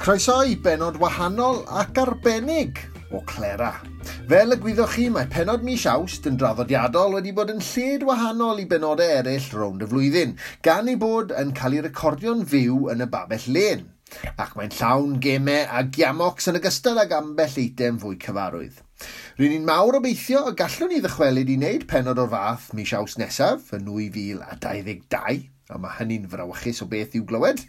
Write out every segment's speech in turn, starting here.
Croeso i benod wahanol ac arbennig o Clera. Fel y gwyddoch chi, mae penod mis Awst yn draddodiadol wedi bod yn lled wahanol i benodau eraill rownd y flwyddyn, gan ei bod yn cael ei recordio'n fyw yn y babell lên. Ac mae'n llawn gemau a giamocs yn ogystal ag ambell eitem fwy cyfarwydd. Ry'n ni'n mawr obeithio y gallwn ni ddychwelyd i wneud penod o'r fath mis Awst nesaf, yn 2022, a mae hynny'n frawychus o beth i'w glywed,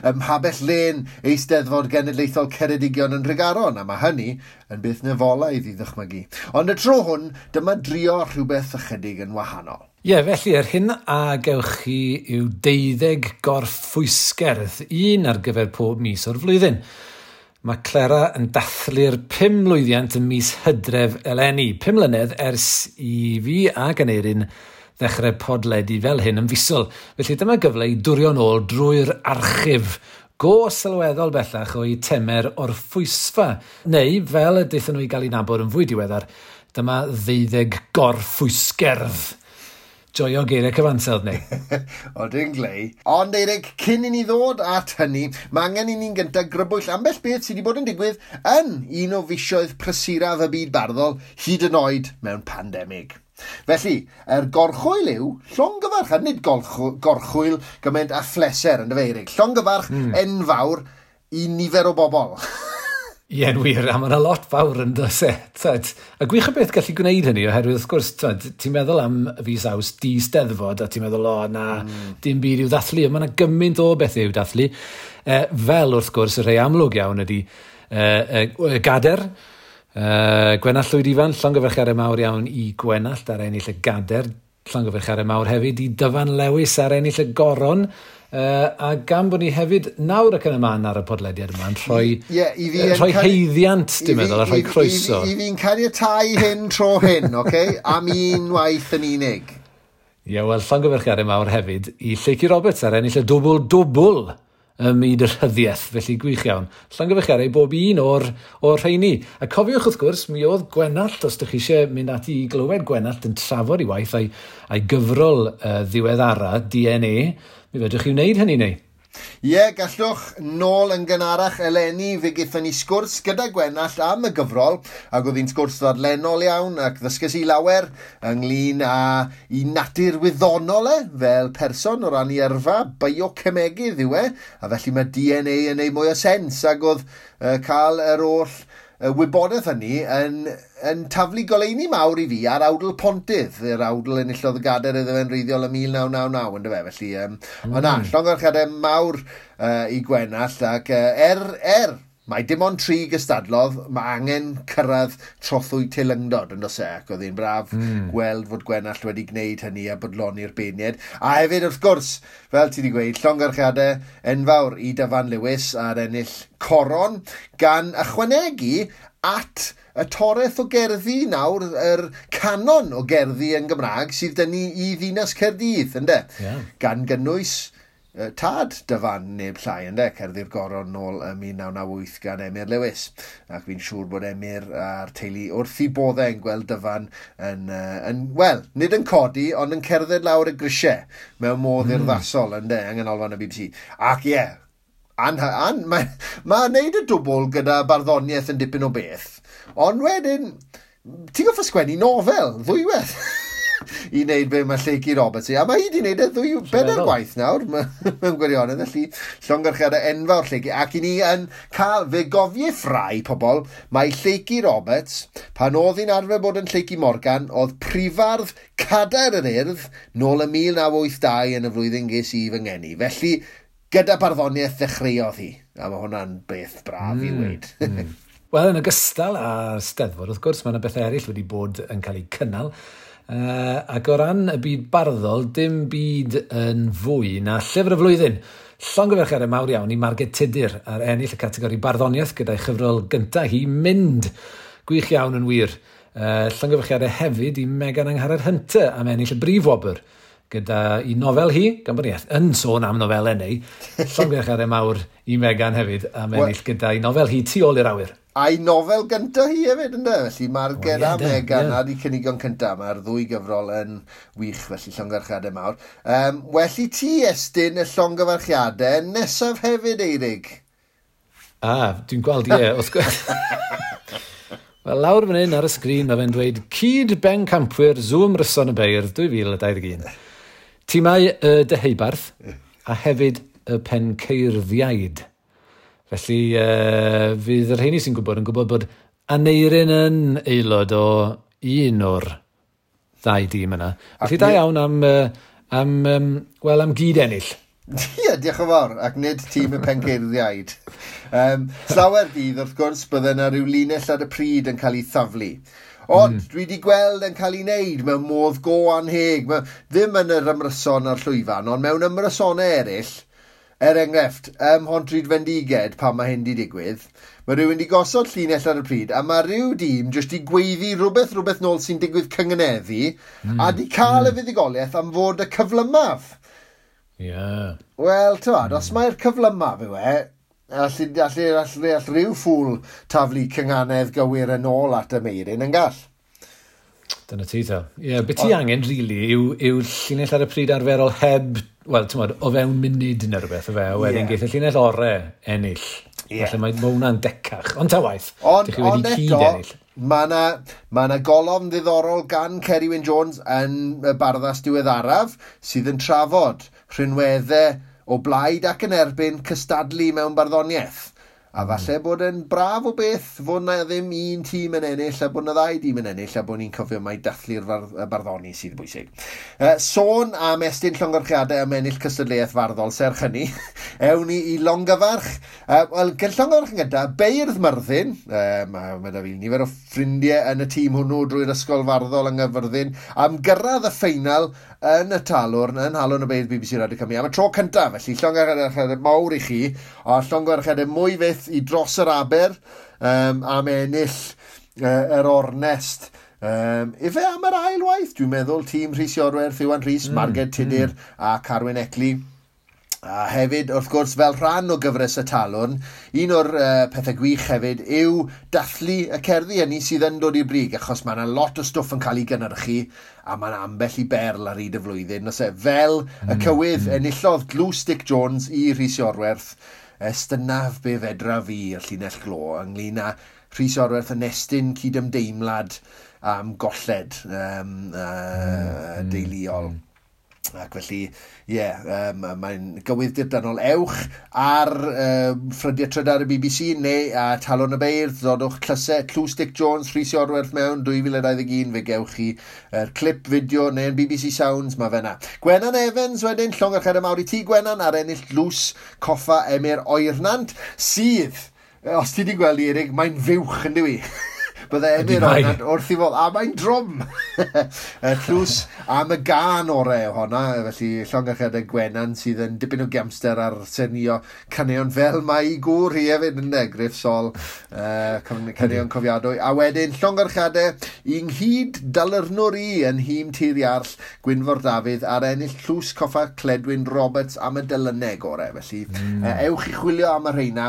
ym Mhabell Lên Eisteddfod Genedlaethol Ceredigion yn Nhregaron, a mae hynny yn beth nefolaidd i ddychmygu. Ond y tro hwn, dyma drio rhywbeth ychydig yn wahanol. Ie, yeah, felly, yr hyn a gewch chi yw 12 gorffwysgerdd, un ar gyfer pob mis o'r flwyddyn. Mae Clera yn dathlu'r 5 mlwyddiant ym mis Hydref eleni, 5 mlynedd ers i fi ac Aneirin ddechrau podledu fel hyn yn fisol. Felly dyma gyfle i dwrio'n ôl drwy'r archif go sylweddol bellach o'i temer o'r ffwysfa, neu fel y daethon nhw i gael ei nabod yn fwy diweddar, dyma 12 gorffwysgerdd. Joio geiriau cyfansawdd neu. O, dwi'n glei. Ond Eirig, cyn i ni ddod at hynny, mae angen i ni'n gyntaf grybwyll ambell beth sydd wedi bod yn digwydd yn un o fisoedd prysuraf y byd barddol, hyd yn oed mewn pandemig. Felly, yr gorchwyl yw llongyfarch, a nid gorchwyl gymaint a phleser yn dy Eirig. Llongyfarch enfawr i nifer o bobl. Ie, yn wir, a mae yna lot fawr yn does e. Tyd. A gwych o beth gallu gwneud hynny, oherwydd wrth gwrs, tyd, ti'n meddwl am fis Awst di steddfod, a ti'n meddwl, o, na, dim byd i'w ddathlu, ond mae yna gymaint o bethau i'w dathlu. Fel, wrth gwrs, y rhai amlwg iawn ydy y gader, Gwenallt Llwyd Ifan, llongyfarchiadau mawr iawn i Gwenallt ar ennill y gader, llongyfarchiadau mawr hefyd i Dyfan Lewis ar ennill y goron, a gan bod ni hefyd nawr ac yn y man ar y podlediad yma yn rhoi, yeah, i fi rhoi haeddiant, dwi'n meddwl, a rhoi croeso. I fi'n caniatáu hyn tro hyn, okay? Am un waith yn unig. Ie, yeah, wel, llongyfarchiadau mawr hefyd i Lleucu Roberts ar ennill y dwbl-dwbl ym myd y rhyddiaeth, felly gwych iawn. Llongyfarchiadau i bob un o'r rheini. A cofiwch wrth gwrs, mi oedd Gwenallt, os ydych chi eisiau mynd ati i glywed Gwenallt yn trafod ei waith a'i gyfrol ddiweddara, DNA, mi fedrwch chi wneud hynny neu? Ie, yeah, gallwch. Nôl yn gynharach eleni, fe gaethon ni sgwrs gyda Gwenallt am y gyfrol, ac oedd hi'n sgwrs ddadlennol iawn, ac ddysges i lawer ynglyn â i natur wyddonol e, fel person o ran ei yrfa, biocemegydd yw e, a felly mae DNA yn ei mwy o sens, ac oedd cael yr oll wybodaeth hynny yn taflu goleuni mawr i fi ar awdl Pontydd, yr awdl enillodd y gader iddo fe'n wreiddiol ym 1999, yndyfe, felly, ond na, llongyfarchiadau mawr i Gwenallt, ac mae dim ond 3 gystadlodd, mae angen cyrraedd trothwy teilyngdod yn does e, ac oedd hi'n braf gweld fod Gwenallt wedi gwneud hynny a bodloni'r beirniaid. A hefyd, wrth gwrs, fel ti wedi gweud, llongyfarchiadau enfawr i Dyfan Lewis ar ennill coron, gan ychwanegu at y toreth o gerddi nawr, yr canon o gerddi yn Gymraeg sydd dyn ni i Ddinas Caerdydd, ynde? Yeah. Gan gynnwys tad Dyfan neb llai, ynde, cerddi'r goron nôl ym 1998 gan Emyr Lewis. Ac fi'n siŵr bod Emyr a'r teulu wrth i boddau yn gweld Dyfan yn, wel, nid yn codi, ond yn cerdded lawr y grisiau mewn modd urddasol, ynde, yng nghanolfan y BBC. Ac ie, yeah, mae wneud y dwbl gyda barddoniaeth yn dipyn o beth, ond wedyn, ti'n gorfod sgwennu nofel, ddwywaith. I wneud be mae Lleucu Roberts i. A mae hi wedi wneud e ddwy bedair gwaith nawr, mewn gwirionedd, felly llongyfarchiadau enfawr Lleucu. Ac i ni yn cael, fe gofiff rai pobl, mae Lleucu Roberts, pan oedd hi'n arfer bod yn Lleucu Morgan, oedd prifardd Cadair yr Urdd nôl ym 1982 yn y flwyddyn ges i fy ngeni. Felly, gyda barddoniaeth ddechreuodd hi. A mae hwnna'n beth braf i weud. Wel, yn ogystal â'r Steddfod, wrth gwrs, mae yna bethau eraill wedi bod yn cael eu cynnal. Ac o ran y byd barddol, dim byd yn fwy na llyfr y flwyddyn. Llongyfarchiadau mawr iawn i Marged Tudur ar ennill y categori barddoniaeth gyda'i chyfrol gyntaf hi, Mynd. Gwych iawn yn wir. Llongyfarchiadau hefyd i Megan Angharad Hunter am ennill y brif wobr gyda i nofel hi, gan bod ni yn sôn am nofelau neu, llongyfarchiadau mawr i Megan hefyd am ennill gyda'i nofel hi Tu ôl i'r awyr. A'i nofel gyntaf hi hefyd, ynddo? Felly Marged a Megan ar eu cynigion cyntaf. Mae'r ddwy gyfrol yn wych, felly llongyfarchiadau mawr. Well i ti estyn y llongyfarchiadau nesaf hefyd, Eirig. A, dwi'n gweld, ie, wrth gwrs. Wel, lawr fan hyn ar y sgrin, mae fe'n dweud cyd bencampwyr Zoom Ryson y Beirdd 2021. Tîmau y Deheubarth a hefyd y Penceirddïaid. Felly, fydd y rheini sy'n gwybod yn gwybod bod Aneirin yn aelod o un o'r ddau dîm yna. Felly, da iawn am gyd ennill. Ie, diolch yn fawr, ac nid tîm y Penceirddïaid. Slawer dydd, wrth gwrs, bydde yna rhyw linell ar y pryd yn cael ei thaflu. Ond dwi wedi gweld yn cael ei wneud mewn modd go anheg. Ddim yn yr ymryson a'r llwyfan, ond mewn ymrysonau eraill, er enghraifft, ym Mhontrhyd Fendiged, pan mae hyn wedi digwydd, mae rhywun wedi gosod llinell ar y pryd, a mae rhyw dîm jyst i gweiddi rhywbeth nôl sy'n digwydd cyngeneddu, a di cael y fuddugoliaeth am fod y cyflymaf. Yeah. Wel, ti'n os mae'r cyflymaf yw e, all rhyw ffwl taflu cynganedd gywir yn ôl at y meirin yn gall. Dyna ti, ta. Ie, be ti angen, really, yw llinell ar y pryd arferol heb, wel, ti'n modd, o fewn munud neu rhywbeth, o fe, a wedyn geith y llinell ore ennill. Felly mae hwnna'n decach. Ond ta waith, dych chi wedi cyd ennill. Mae yna golofn ddiddorol gan Ceri Wyn Jones yn y Barddas diweddaraf sydd yn trafod rhinweddau o blaid ac yn erbyn cystadlu mewn barddoniaeth. A falle bod yn braf o beth fod na ddim un tîm yn ennill a bod na ddau dîm yn ennill a bod ni'n cofio mai dathlu'r barddoni sydd bwysig. Sôn am estyn llongyfarchiadau am ennill cystadleuaeth farddol serch hynny, ewn ni i longyfarch. Wel, gyda llongyfarch yn gyntaf, Beirdd Myrddin, mae da fi nifer o ffrindiau yn y tîm hwnnw drwy'r ysgol farddol yng Nghaerfyrddin, am gyrraedd y ffeinal yn y Talwrn, yn Nhalwrn y Beirdd BBC Radio Cymru, am y tro cyntaf, felly llongyfarchiadau mawr i chi, a llongyfarchiadau mwy fyth i dros yr aber am ennill yr ornest. Ife am yr ail waith, dwi'n meddwl, tîm Rhys Iorwerth, Iwan Rhys, Marged Tudur a Carwyn Eckley. A hefyd, wrth gwrs, fel rhan o gyfres y Talwrn, un o'r pethau gwych hefyd yw dathlu y cerddi hynny sydd yn dod i'r brig, achos mae yna lot o stwff yn cael ei gynhyrchu, a mae yna ambell i berl ar hyd y flwyddyn. Os e, fel y cywydd enillodd Dlws Dic Jones i Rhys Iorwerth, estynaf be fedra fi y llinell glo ynglyn â Rhys Iorwerth yn estyn cydymdeimlad am golled deuluol. Ac felly, ie, mae'n gywydd dirdanol. Ewch ar ffrydiau trydar y BBC neu a Talwrn y Beirdd, dodwch tlysau Tlws Dic Jones, Rhys Iorwerth mewn 2021, fe gewch chi clip fideo neu yn BBC Sounds, mae fe na. Gwenan Evans wedyn, llongyfarchiadau mawr i ti Gwenan, ar ennill Dlws Coffa Emyr Oernant, sydd, os ti wedi gweld i Erig, mae'n fuwch yn dyw i. Bydde Emyr Oernant wrth i fod, a mae'n drwm. Tlws am y gân orau honna, felly llongyfarchiadau Gwenan sydd yn dipyn o giamster ar senio caneuon fel mae i gŵr hi hefyd yn Griff Sol, caneuon cofiadwy. A wedyn llongyfarchiadau i nghyd dalyrnwr i yn nhîm Tir Iarll, Gwynfor Dafydd, ar ennill Tlws Coffa Cledwyn Roberts am y delyneg orau. Felly ewch i chwilio am y rheina.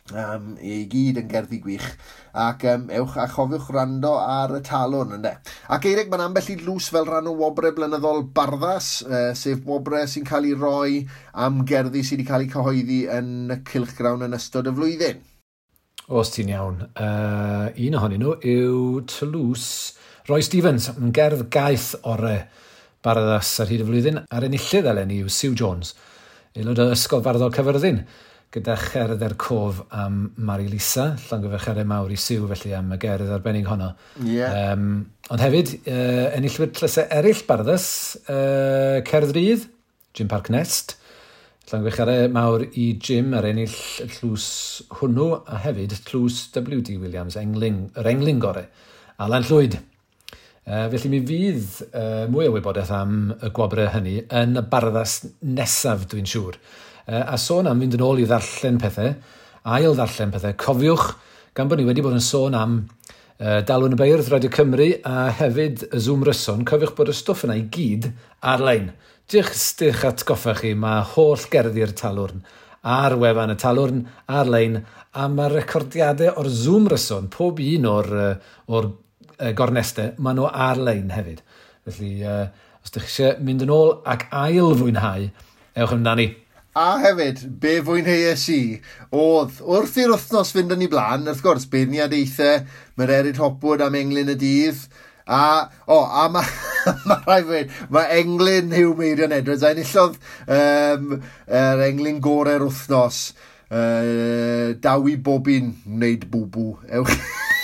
I gyd yn gerddi gwych, ac ewch a chofiwch rando ar y Talwrn, ynde. Ac Eirig, mae'n ambell i dlws fel rhan o wobrau blynyddol Barddas, sef wobrau sy'n cael ei roi am gerddi sydd wedi cael eu cyhoeddi yn y cylchgrawn yn ystod y flwyddyn. Os ti'n iawn. Un ohonyn nhw yw Tlws Roy Stevens, yn gerdd gaeth orau Barddas ar hyd y flwyddyn, a'r enillydd eleni yw Sue Jones, aelod o Ysgol Farddol Caerfyrddin, gyda cherdd er cof am Mari Lisa, llongyfarchiadau mawr i Sue felly am y gerdd arbennig honno. Yeah. Ond hefyd, enillwyr tlysau eraill Barddas, Cerdd Rydd, Jim Parc Nest, llongyfarchiadau mawr i Jim ar ennill y tlws hwnnw, a hefyd tlws W.D. Williams, yr englyn gore, Alan Llwyd. Felly mi fydd mwy o wybodaeth am y gwobrau hynny yn y Barddas nesaf, dwi'n siŵr. A sôn am fynd yn ôl i ddarllen pethau, ail ddarllen pethau, cofiwch, gan bod ni wedi bod yn sôn am Dalwrn y Beirdd, Radio Cymru, a hefyd y Zoom Ryson, cofiwch bod y stwff yna i gyd ar-lein. Jyst atgoffa chi, mae holl gerddi'r Talwrn ar wefan y Talwrn ar-lein, a mae recordiadau o'r Zoom Ryson, pob un o'r gornestau, maen nhw ar-lein hefyd. Felly, os ydych chi eisiau mynd yn ôl ac ail fwynhau, ewch amdani. A hefyd, be fwynheuais i, oedd wrth i'r wythnos fynd yn ei blaen, wrth gwrs, beirniadaethau, Mererid Hopwood am englyn y dydd, a, o, a mae ma rhaid fi, mae englyn Huw Meirion Edwards, a enillodd yr englyn gorau'r wythnos, daw i bobun wneud bwbw. Ewch.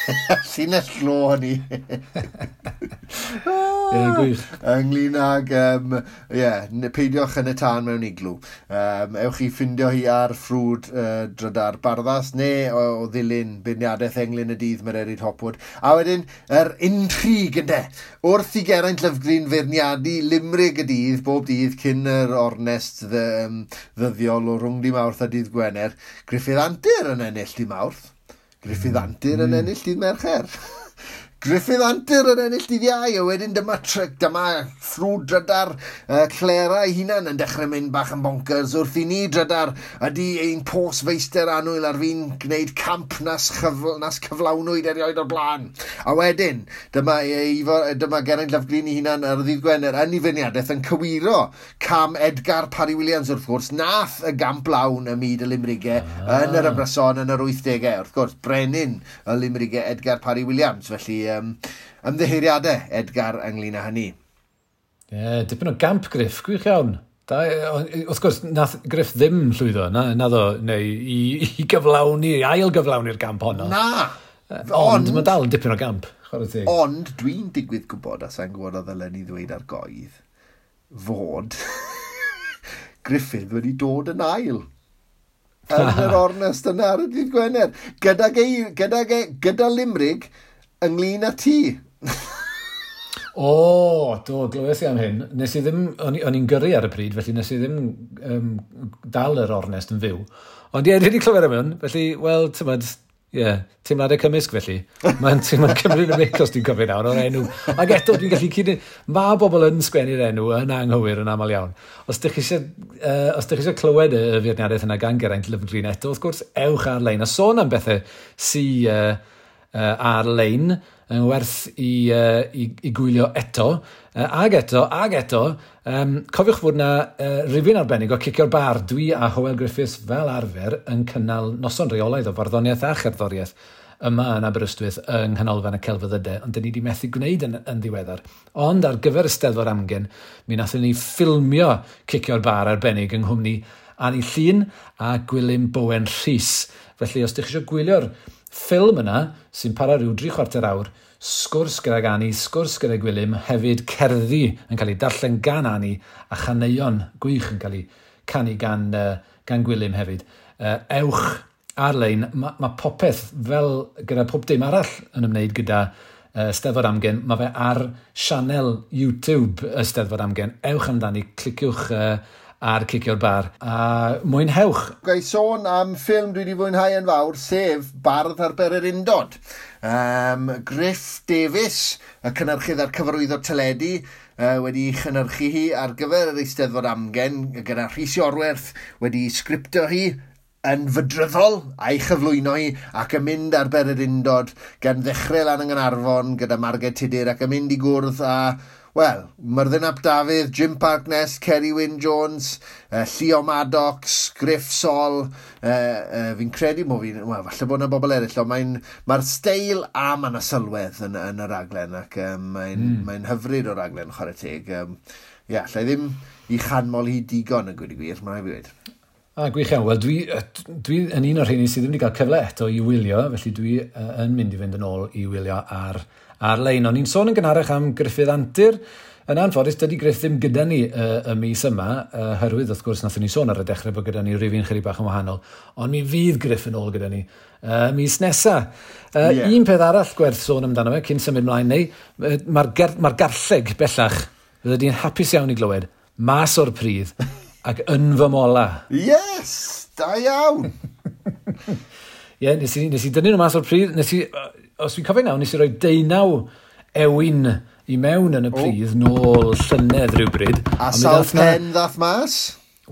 Llinell glo hynny. Ie, gwych. Ynglyn ag, yeah, peidiwch yn y tân mewn iglw. Ewch i ffindio hi ar ffrwd drydar Barddas neu o ddilyn beirniadaeth englyn y dydd Mererid Hopwood. A wedyn, yr intrig ynde. Wrth i Geraint Lyfgrin feirniadu limrig y dydd, bob dydd cyn yr ornest ddyddiol o rhwng di Mawrth a dydd Gwener, Gruffydd Antur yn ennill di Mawrth. Gruffydd Antur yn ennill dydd Mercher. Gruffydd Antur yn ennill dydd Iau, a wedyn dyma, dyma ffrwd drydar Clera ei hunan yn dechrau mynd bach yn bonkers wrth i ni drydar ydy ein pos feister annwyl ar fin gwneud camp nas, nas cyflawnwyd erioed o'r blaen. A wedyn, dyma, dyma Geraint Lyfgreen ei hunan ar ddydd Gwener yn ei feirniadaeth yn cywiro cam Edgar Parry Williams wrth gwrs, nath y gamp lawn ym myd y limrigau yn yr ymryson yn yr 80au. Wrth gwrs, brenin y limrigau Edgar Parry Williams, felly ymddiheuriadau Edgar ynglyn â hynny. Ie, yeah, dipyn o gamp Griff, gwych iawn. Da, wrth gwrs, nath Griff ddim llwyddo, na ddo, neu i gyflawni, i ail gyflawni'r gamp honno. Na! Ond mae dal yn dipyn o gamp, chwarae teg. Ond dwi'n digwydd gwybod, a sa'n gwybod o ddylen ni ddweud ar goedd, fod Gruffydd wedi dod yn ail yn yr ornest yna ar y dydd Gwener. Gyda, gyda, gyda limrig ynglyn â ti. O, do, glywes i am hyn. Nes i ddim, o'n i'n gyrru ar y pryd, felly nes i ddim dal yr ornest yn fyw. Ond ie, dwi wedi clywed am hwn, felly, wel, ti'mod, ie, teimladau cymysg felly. Mae'n cymryd y mic os dwi'n cofio nawr o'r enw. Ac eto, dwi'n gallu cyd... Mae bobl yn sgwennu'r enw yn anghywir yn aml iawn. Os ydych chi eisiau clywed y feirniadaeth yna gan Geraint Lyfrgreen eto, wrth gwrs, ewch ar-lein. A sôn am bethau sy ar-lein yn werth i gwylio eto, ag eto, ag eto. Cofiwch fod yna rifyn arbennig o Cicio'r Bar. Dwi a Hywel Griffiths fel arfer yn cynnal noson reolaidd o farddoniaeth a cherddoriaeth yma yn Aberystwyth yng Nghanolfan y Celfyddydau, ond dyn ni wedi methu gwneud yn ddiweddar. Ond ar gyfer y Steddfod Amgen, mi nathon ni ffilmio Cicio'r Bar arbennig yng nghwmni Annie Llun a Gwilym Bowen Rhys. Felly, os ydych chi eisiau gwylio'r ffilm yna, sy'n para rhyw 3/4 awr, sgwrs gydag Annie, sgwrs gyda Gwilym, hefyd cerddi yn cael ei darllen gan Annie a chaneuon gwych yn cael ei canu gan Gwilym hefyd. Ewch ar-lein, mae popeth fel gyda pob dim arall yn ymwneud gyda Steddfod Amgen, mae fe ar sianel YouTube y Steddfod Amgen. Ewch amdani, cliciwch ar Cicio'r Bar, a mwynhewch. Ga i sôn am ffilm dwi wedi fwynhau yn fawr, sef Bardd ar Bererindod. Griff Davies, y cynhyrchydd a'r cyfarwyddwr teledu, wedi chynhyrchu hi ar gyfer yr Eisteddfod Amgen, gyda Rhys Iorwerth wedi sgriptio hi yn fydryddol a'i chyflwyno hi ac yn mynd ar Bererindod gan ddechrau lan yng Nghaernarfon gyda Marged Tudur ac yn mynd i gwrdd â, wel, Myrddin ap Dafydd, Jim Parkness, Kerry Wyn Jones, Llio Maddox, Griff Sol, fi'n credu mo fi'n, wel, falle bod yna bobl eraill, ond mae'r steil a mae yna sylwedd yn y raglen, ac mae'n hyfryd o raglen, chwarae teg. Ie, allai ddim i chanmol hi digon yn gweud y gwir, mae'n rhaid fi weud. A, gwych iawn. Wel, dwi yn un o'r rheini sydd ddim wedi cael cyfle eto i wylio, felly dwi yn mynd i fynd yn ôl i wylio ar-lein. O'n i'n sôn yn gynharach am Gruffydd Antur. Yn anffodus, dydy Griff ddim gyda ni y mis yma, herwydd wrth gwrs nathon ni sôn ar y dechrau bod gyda ni rifyn chydig bach yn wahanol, ond mi fydd Griff yn ôl gyda ni mis nesa. Un peth arall gwerth sôn amdano fe, cyn symud mlaen neu, mae'r garlleg bellach, fydde di'n hapus iawn i glywed, mas o'r pridd ac yn fy mola. Yes, da iawn! Ie, nes i dynnu nhw mas o'r pridd, os fi'n cofio nawr, nes i roi 19 ewin i mewn yn y pridd nôl llynedd rhywbryd. A sawl pen ddath mas?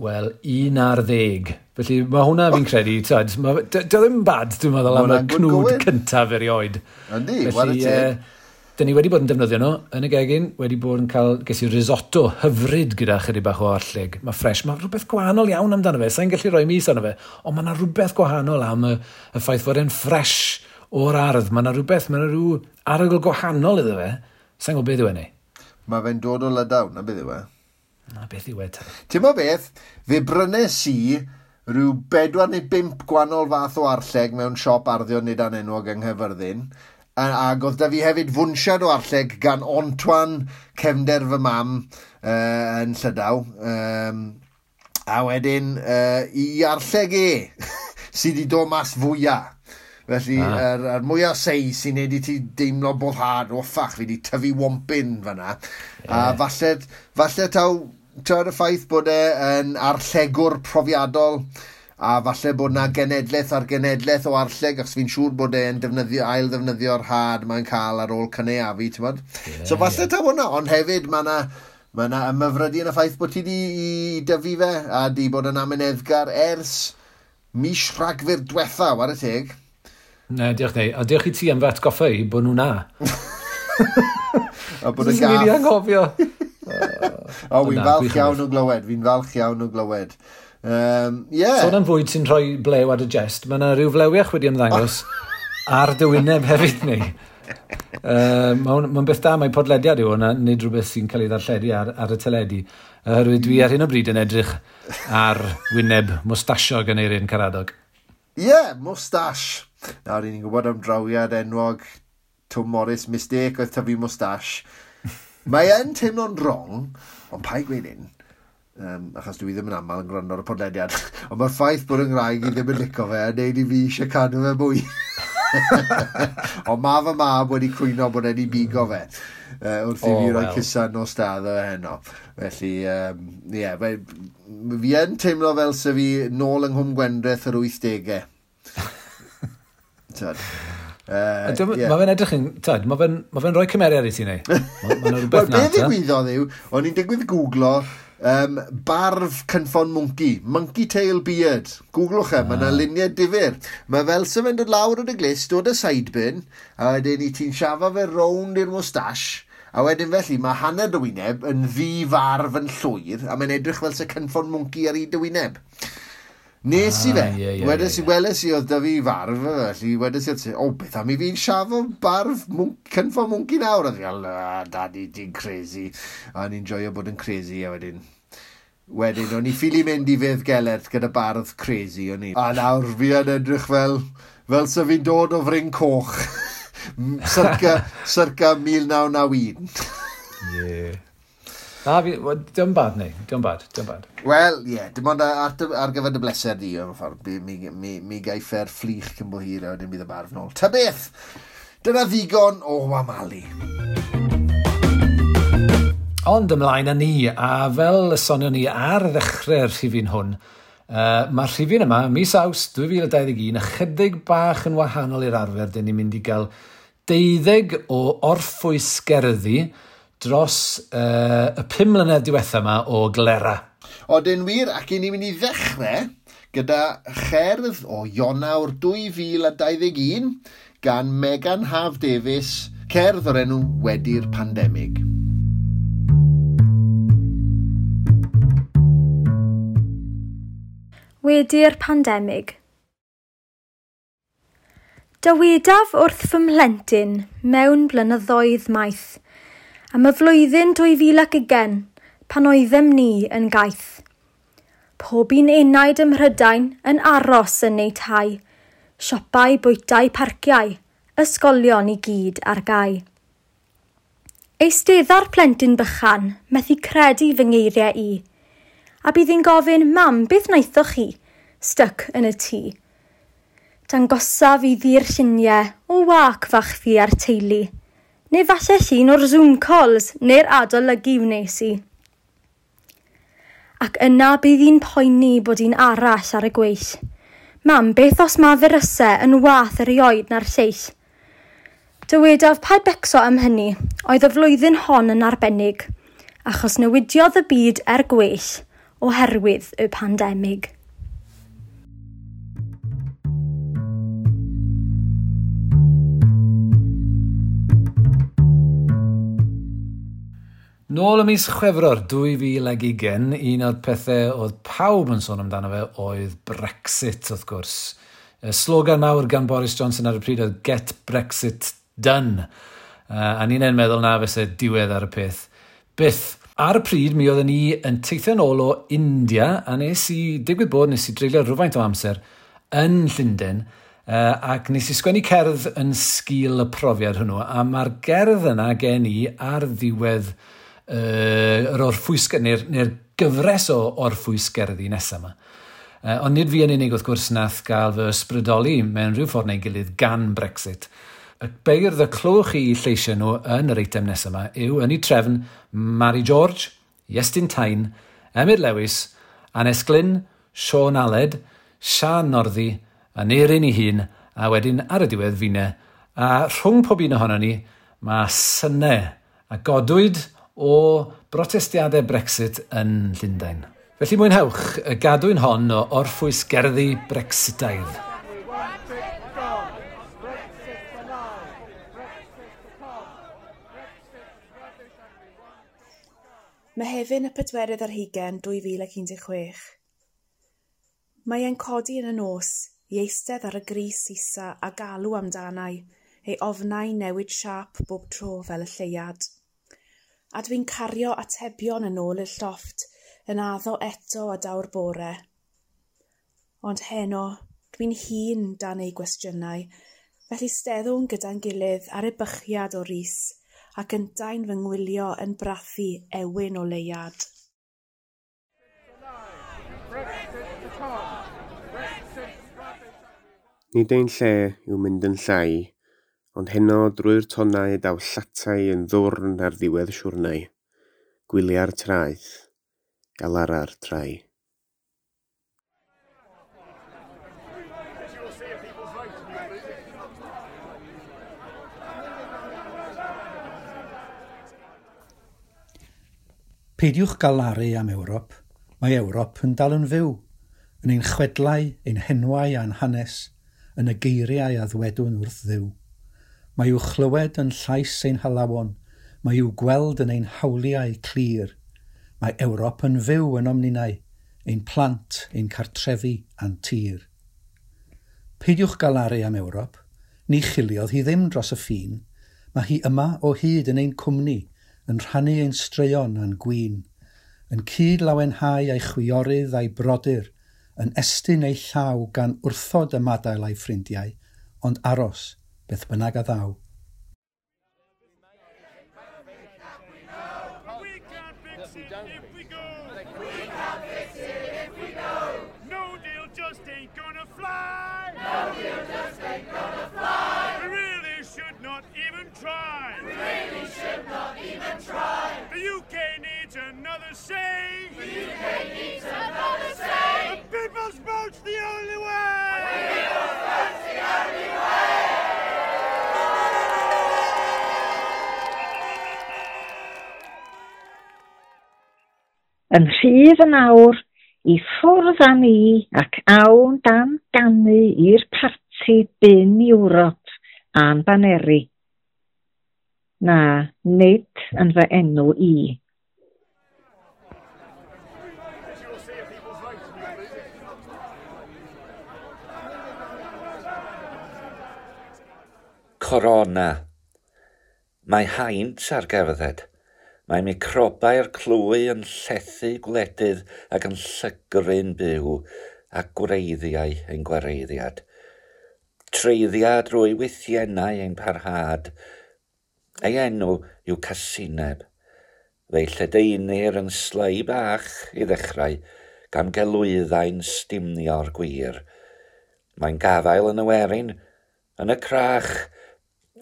Wel, 11. Felly mae hwnna fi'n credu, dio ddim bad, dwi'n meddwl, am y cnwd cyntaf erioed. Yndi, whare teg. Dyn ni wedi bod yn defnyddio nhw yn y gegin, wedi bod yn cael, ges i risotto hyfryd gyda chydig bach o arlleg. Mae ffres, mae rhywbeth gwahanol iawn amdano fe, sa'n gallu rhoi mis arno fe, ond mae yna rhywbeth gwahanol am y ffaith fod e'n ffres o'r ardd. Mae yna rhywbeth, mae yna rhyw arogl gwahanol iddo fe. Sa'n gwybod beth yw e neu? Mae fe'n dod o Lydaw, na beth yw e? Na beth yw e te. Ti'n mo beth, fe brynes i rhyw 4 neu 5 gwahanol fath o arlleg mewn siop arddio nid anenwog yng Nghaerfyrddin. Ac oedd da fi hefyd fwnsiad o arlleg gan Antoine, cefnder fy mam, yn Llydaw. A wedyn i arlleg e, sydd wedi dod mas fwyaf. Felly, yr mwyaf sei sy'n neud i ti deimlo boddhad, o ffach, fi wedi tyfu wompyn fanna. Yeah. A falle taw, y ffaith bod e yn arllegwr profiadol, a falle bod na genedlaeth ar genedlaeth o arlleg, achos fi'n siŵr bod e'n defnyddio, ail ddefnyddio'r had mae'n cael ar ôl cynaeafu, ti'n bod? Yeah, so falle taw hwnna, ond hefyd mae yna ymhyfrydu yn y ffaith bod ti di i dyfu fe, a di bod yn amyneddgar ers mis Rhagfyr diwetha, ware teg. Ne, diolch neu. A diolch i ti am fy atgoffa i bod nhw'n na. A bod y gath. Fi'n anghofio. O, fi'n falch iawn o glywed. Fi'n falch iawn o glywed. Yeah. Sôn am fwyd sy'n rhoi blew ar y jest, mae yna rhyw flewiach wedi ymddangos ar dy wyneb hefyd neu. Mae'n beth da, mae podlediad yw hwnna, nid rhywbeth sy'n cael ei ddarlledu ar y teledu. Oherwydd dwi ar hyn o bryd yn edrych ar wyneb mwstasiog yn Eirin Caradog. Ie, yeah, mwstash. Nawr, ni'n gwybod am drawiad enwog Tom Morris, mistake oedd tyfu mwstash. Mae yn teimlo'n wrong, ond paid gweud hyn, achos dwi ddim yn aml yn gwrando ar y podlediad, ond mae'r ffaith bod yng Nghymraeg i ddim yn licio fe yn neud i fi eisiau cadw fe mwy. Ond mae fy mab wedi cwyno bod e'n i bigo fe wrth i fi roi cusan nos da iddo fe heno. Felly, ie, fi yn teimlo fel se fi nôl yng Nghwm Gwendraeth yr 80au. Tyd. Mae fe'n edrych yn, tyd, mae fe'n rhoi cymeriad i ti neu. Mae'n rhywbeth na. Wel, be ddigwyddodd yw, o'n i'n digwydd googlo barf cynffon mwnci, monkey tail beard. Googlwch e, mae yna luniau difyr. Mae fel se fe'n dod lawr o dy glust, dod y sideburn, a wedyn i ti'n siafo fe rownd i'r moustache, a wedyn felly mae hanner dy wyneb yn ddi-farf yn llwyr, a mae'n edrych fel se cynffon mwnci ar hyd dy wyneb. Nes i fe, wedes i, weles i oedd da fi farf, felly wedes i, o, beth am i fi'n siafo barf cynffon mwnci nawr? A fi fel, daddy, ti'n crazy. A ni'n joio bod yn crazy, a wedyn, o'n i ffili mynd i Fedd Gelert gyda bardd crazy, o'n i. A nawr fi yn edrych fel se fi'n dod o Fryn Coch, circa 1991. Ie. Na, diolch bad neu, diolch bad, diolch bad. Wel, ie, yeah, dim ond ar gyfer dy bleser di, mewn ffordd, mi gaiff e'r fflich cyn bo hir a wedyn bydd y barf nôl. Ta beth, dyna ddigon o wamalu. Ond ymlaen â ni, a fel y sonion ni ar ddechrau'r rhifyn hwn, mae'r rhifyn yma, mis Awst 2021, ychydig bach yn wahanol i'r arfer, dyn ni'n mynd i gael 12 o orffwysgerddi dros y 5 mlynedd diwetha yma o Glera. Odyn wir, ac i ni'n mynd i ddechrau gyda cherdd o Ionawr 2021 gan Megan Haf Davies, cerdd o'r enw Wedi'r Pandemig. Wedi'r pandemig. Dywedaf wrth fy mhlentyn mewn blynyddoedd maith, am y flwyddyn 2020 pan oeddem ni yn gaeth. Pob un enaid ym Mhrydain yn aros yn eu tai, siopau, bwytai, parciau, ysgolion i gyd ar gau. Eistedda'r plentyn bychan, methu credu fy ngeiriau i, a bydd hi'n gofyn, mam, beth wnaethoch chi? Styc yn y tŷ. Dangosaf i ddi'r lluniau o wac fach fi a'r teulu, neu falle llun o'r Zoom calls neu'r adolygu wnes i. Ac yna bydd hi'n poeni bod un arall ar y gweill. Mam, beth os ma firysau yn wath erioed na'r lleill? Dywedaf paid becso am hynny, oedd y flwyddyn hon yn arbennig, achos newidiodd y byd er gwell oherwydd y pandemig. Nôl ym mis Chwefror 2020, un o'r pethau oedd pawb yn sôn amdano fe oedd Brexit, wrth gwrs. Y slogan mawr gan Boris Johnson ar y pryd oedd "Get Brexit Done". A ni'n meddwl na fyse diwedd ar y peth. Byth. Ar y pryd, mi oedden ni yn teithio nôl o India, a nes i, digwydd bod, nes i dreulio rhywfaint o amser yn Llundain, ac nes i sgwennu cerdd yn sgil y profiad hwnnw, a mae'r gerdd yna gen i ar ddiwedd yr orffwys, neu'r gyfres o orffwysgerddi nesaf yma. Ond nid fi yn unig, wrth gwrs, nath gael fy ysbrydoli mewn rhyw ffordd neu gilydd gan Brexit. Y beirdd y clywch chi lleisiau nhw yn yr eitem nesaf yma yw, yn ei trefn, Mari George, Iestyn Tyne, Emyr Lewis, Annes Glynn, Siôn Aled, Siân Northy, Aneurin ei hun, a wedyn ar y diwedd finne. A rhwng pob un ohono ni, mae synau a godwyd o brotestiadau Brexit yn Llundain. Felly mwynhewch y gadwyn hon o orffwys gerddi Brexitaidd. Mehefin 24, 2016. Mae e'n codi yn y nos i eistedd ar y gris isa a galw amdanai, ei ofnau newid siâp bob tro fel y lleuad. A dwi'n cario atebion yn ôl i'r llofft, yn addo eto a daw'r bore. Ond heno, dwi'n hun dan ei gwestiynau, felly steddwn gyda'n gilydd ar ebychiad o ris, ac yntau'n fy ngwylio yn brathu ewyn o leuad. Nid ein lle yw mynd yn llai, ond heno drwy'r tonnau daw llatai yn ddwrn ar ddiwedd siwrnai. Gwylia'r traeth, galara'r trai. Peidiwch galaru am Ewrop. Mae Ewrop yn dal yn fyw, yn ein chwedlau, ein henwau a'n hanes, yn y geiriau a ddwedwn wrth Dduw. Mae i'w chlywed yn llais ein halawon, mae i'w gweld yn ein hawliau clir. Mae Ewrop yn fyw ynom ninnau, ein plant, ein cartrefi a'n tir. Peidiwch galaru am Ewrop, ni chiliodd hi ddim dros y ffin. Mae hi yma o hyd yn ein cwmni, yn rhannu ein straeon a'n gwin, yn cyd lawenhau a'i chwiorydd a'i brodyr, yn estyn ei llaw gan wrthod ymadael a'i ffrindiau, ond aros, beth bynnag a ddaw. We can't fix it if we go. We can't fix it if we go. No deal just ain't gonna fly. No deal just ain't gonna fly. We really should not even try. We really should not even try. The UK needs another say. The UK needs another say. The people's vote's the only way. The people's vote's the only way. Yn rhydd yn awr, i ffwrdd â ni ac awn dan ganu i'r parti bin Ewrop a'n baneri. Na, nid yn fy enw i. Corona. Mae haint ar gerdded. Mae microbau'r clwy yn llethu gwledydd ac yn llygru'n byw a gwreiddiau ein gwareiddiad. Treiddia drwy wythiennau ein parhad. Ei enw yw casineb. Fe'i lledaenir yn slei bach i ddechrau, gan gelwyddau'n stumnio'r gwir. Mae'n gafael yn y werin, yn y crach,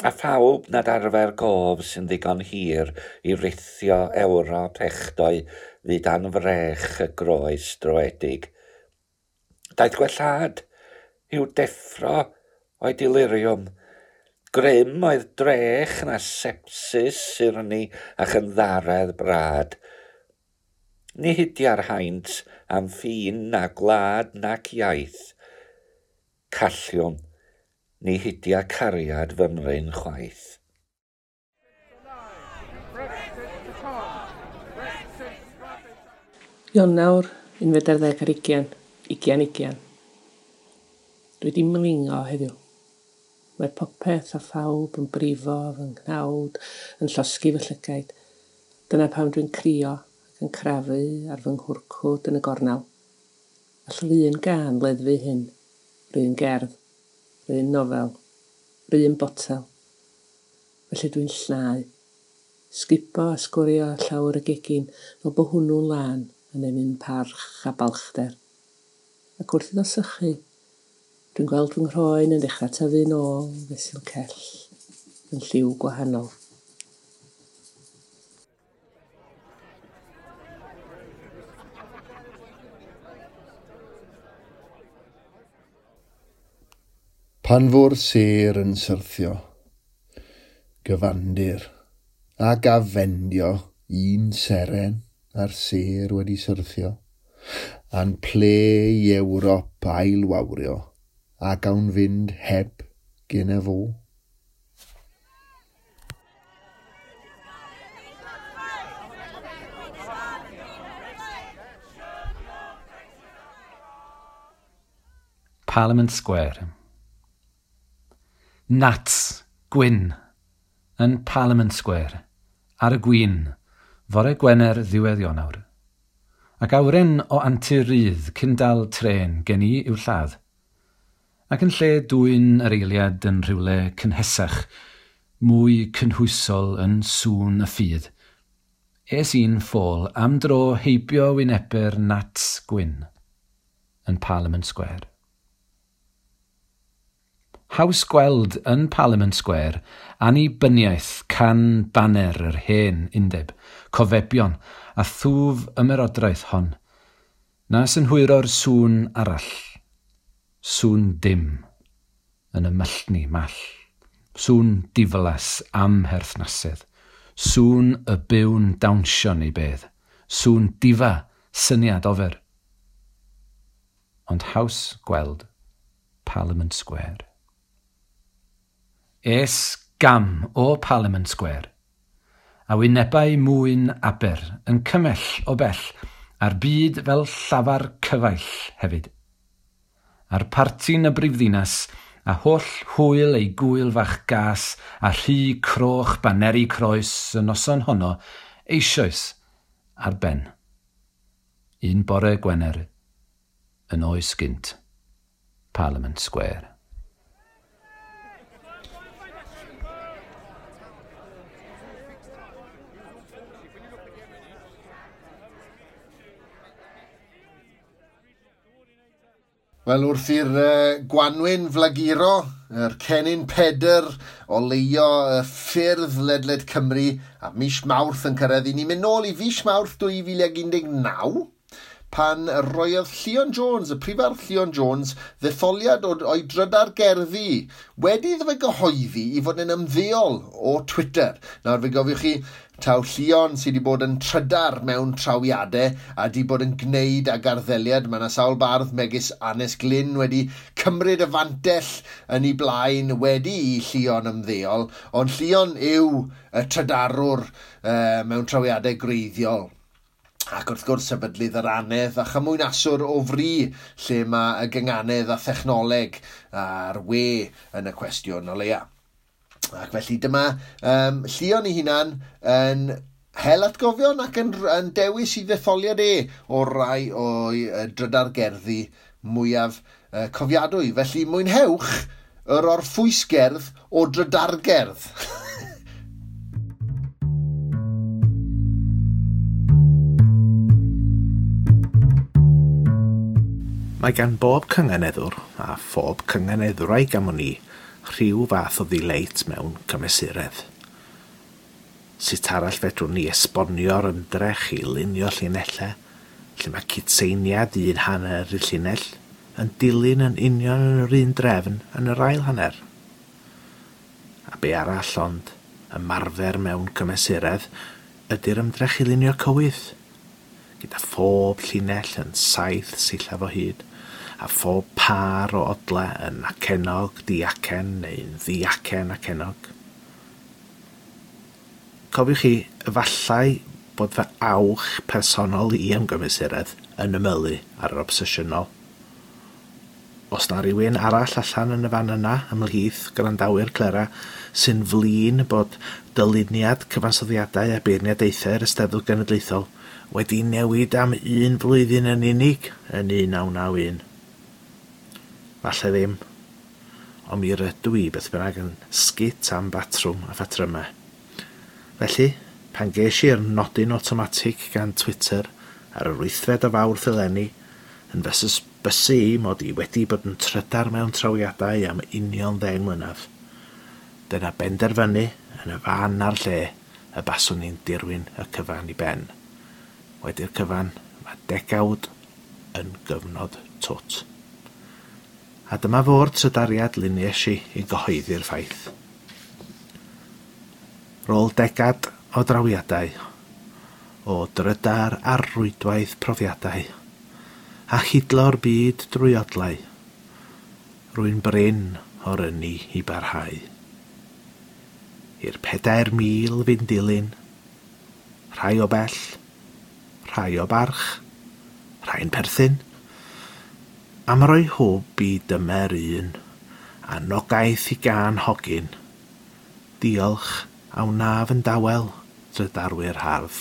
a phawb nad arfer gof sy'n ddigon hir i rithio Ewrop echddoe fyd dan frech y groes droedig. Daeth gwellhad i'w deffro o'i deliriwm. Grym oedd drech na sepsis, surni a chynddaredd brad. Ni hidia'r haint am ffin na gwlad nac iaith. Calliwm, ni hidia cariad fymryn chwaith. Brexit to come. Ionawr, 21, 2020. Dwi 'di mlingo heddiw. Mae popeth a phawb yn brifo fy nghnawd, yn llosgi fy llygaid. Dyna pam dwi'n crio ac yn crafu ar fy nghwrcwd yn y gornel. All yr un gân leddfu hyn, 'r un gerdd, 'r un nofel, 'r un botel. Felly dwi'n llnau. Sgubo a sgwrio llawr y gegin fel bo hwnnw'n lân yn ennyn parch a balchder. Ac wrth iddo sychu, dwi'n gweld fy nghroen yn dechrau tyfu nôl fesul cell yn lliw gwahanol. Pan fo'r sêr yn syrthio, gyfandir, ac afendio un seren a'r sêr wedi syrthio, a'n ple i Ewrop ailwawrio, a gawn fynd heb gen fo. Parliament Square. Nats, gwyn, yn Parliament Square, ar y gwyn, fore Gwener ddiwedd Ionawr. Ac awyren o antur rydd cyn dal trên gen i i'w lladd. Ac yn lle dwyn yr eiliad yn rhywle cynhesach, mwy cynhwysol yn sŵn y ffydd, es i'n ffôl am dro heibio wynebu'r Nats gwyn yn Parliament Square. Haws gweld yn Parliament Square annibyniaeth can baner yr hen undeb, cofebion a thwf ymerodraeth hon, na synhwyro'r sŵn arall, sŵn dim, yn y myllni mall, sŵn diflas amherthnasedd, sŵn y byw'n dawnsio neu bedd, sŵn difa syniad ofer. Ond haws gweld Parliament Square. Es gam o Parliament Square, a wynebau mwyn Aber yn cymell o bell, a'r byd fel llafar cyfaill hefyd. A'r parti'n y brifddinas, a holl hwyl ei gwyl fach gas, a rhy croch baneri croes y noson honno, eisoes ar ben. Un bore Gwener, yn oes gynt, Parliament Square. Wel, wrth i'r gwanwyn flaguro, yr cennin Pedr oleuo y ffyrdd ledled Cymru, a mis Mawrth yn cyrraedd, i ni'n mynd nôl i fis Mawrth 2019, pan roiodd Llion Jones, y prifardd Llion Jones, ddetholiad o'i drydar gerddi wedi iddo fe gyhoeddi i fod yn ymddeol o Twitter. Nawr fe gofiwch chi, taw Llion sydd wedi bod yn trydar mewn trawiadau a wedi bod yn gwneud ag arddeliad. Mae yna sawl bardd megis Anes Glyn wedi cymryd y fantell yn ei blaen wedi i Llion ymddeol, ond Llion yw y trydarwr mewn trawiadau gwreiddiol. Ac wrth gwrs sefydlydd yr anedd a chymwynaswr o fri lle mae y gynganedd a thechnoleg a'r we yn y cwestiwn o leia. Ac felly dyma Llion ei hunan yn hel atgofion ac yn dewis i ddetholiad e o rai o'i drydar gerddi mwyaf cofiadwy. Felly mwynhewch yr orffwysgerdd o drydargerdd. Mae gan bob cynganeddwr a phob cynganeddwraig am wn i rhyw fath o ddileit mewn cymesuredd. Sut arall fedrwn ni esbonio'r ymdrech i lunio llinellau, lle mae cytseiniad un hanner y llinell yn dilyn yn union yn yr un drefn yn yr ail hanner. A be arall ond ymarfer mewn cymesuredd ydy'r ymdrech i lunio cywydd, gyda phob llinell yn 7 sillaf o hyd, a phob pâr o odle yn acennog, diacen neu'n ddiacen acenog. Cofiwch chi, efallai bod fy awch personol i am gymesuredd yn ymylu ar yr obsesiynol. Os na rhywun arall allan yn y fan yna ymhlith gwrandawyr Clera sy'n flin bod dyluniad cyfansoddiadau a beirniadaethau'r Eisteddfod Genedlaethol wedi newid am un flwyddyn yn unig yn 1991. Falle ddim, ond mi rydw i beth bynnag yn sgit am batrwm a phatrymau. Felly, pan ges i'r nodyn awtomatig gan Twitter ar yr 8fed o Fawrth eleni, yn fy hysbysu i mod i wedi bod yn trydar mewn trawiadau am union 10 mlynedd. Dyna benderfynu yn y fan a'r lle y baswn i'n dirwyn y cyfan i ben. Wedi'r cyfan, mae degawd yn gyfnod twt. A dyma fo'r trydariad luniais i i gyhoeddi'r ffaith. Rôl degad o drawiadau, o drydar ar rwydwaith profiadau, a hidlo'r byd drwy odlau. Rwy'n brin o'r ynni i barhau. I'r 4,000 fynd dilyn, rhai o bell, rhai o barch, rhai'n perthyn, am roi hwb i dymer un, a nogaeth i gân hogyn. Diolch a wnaf yn dawel drydarwyr hardd.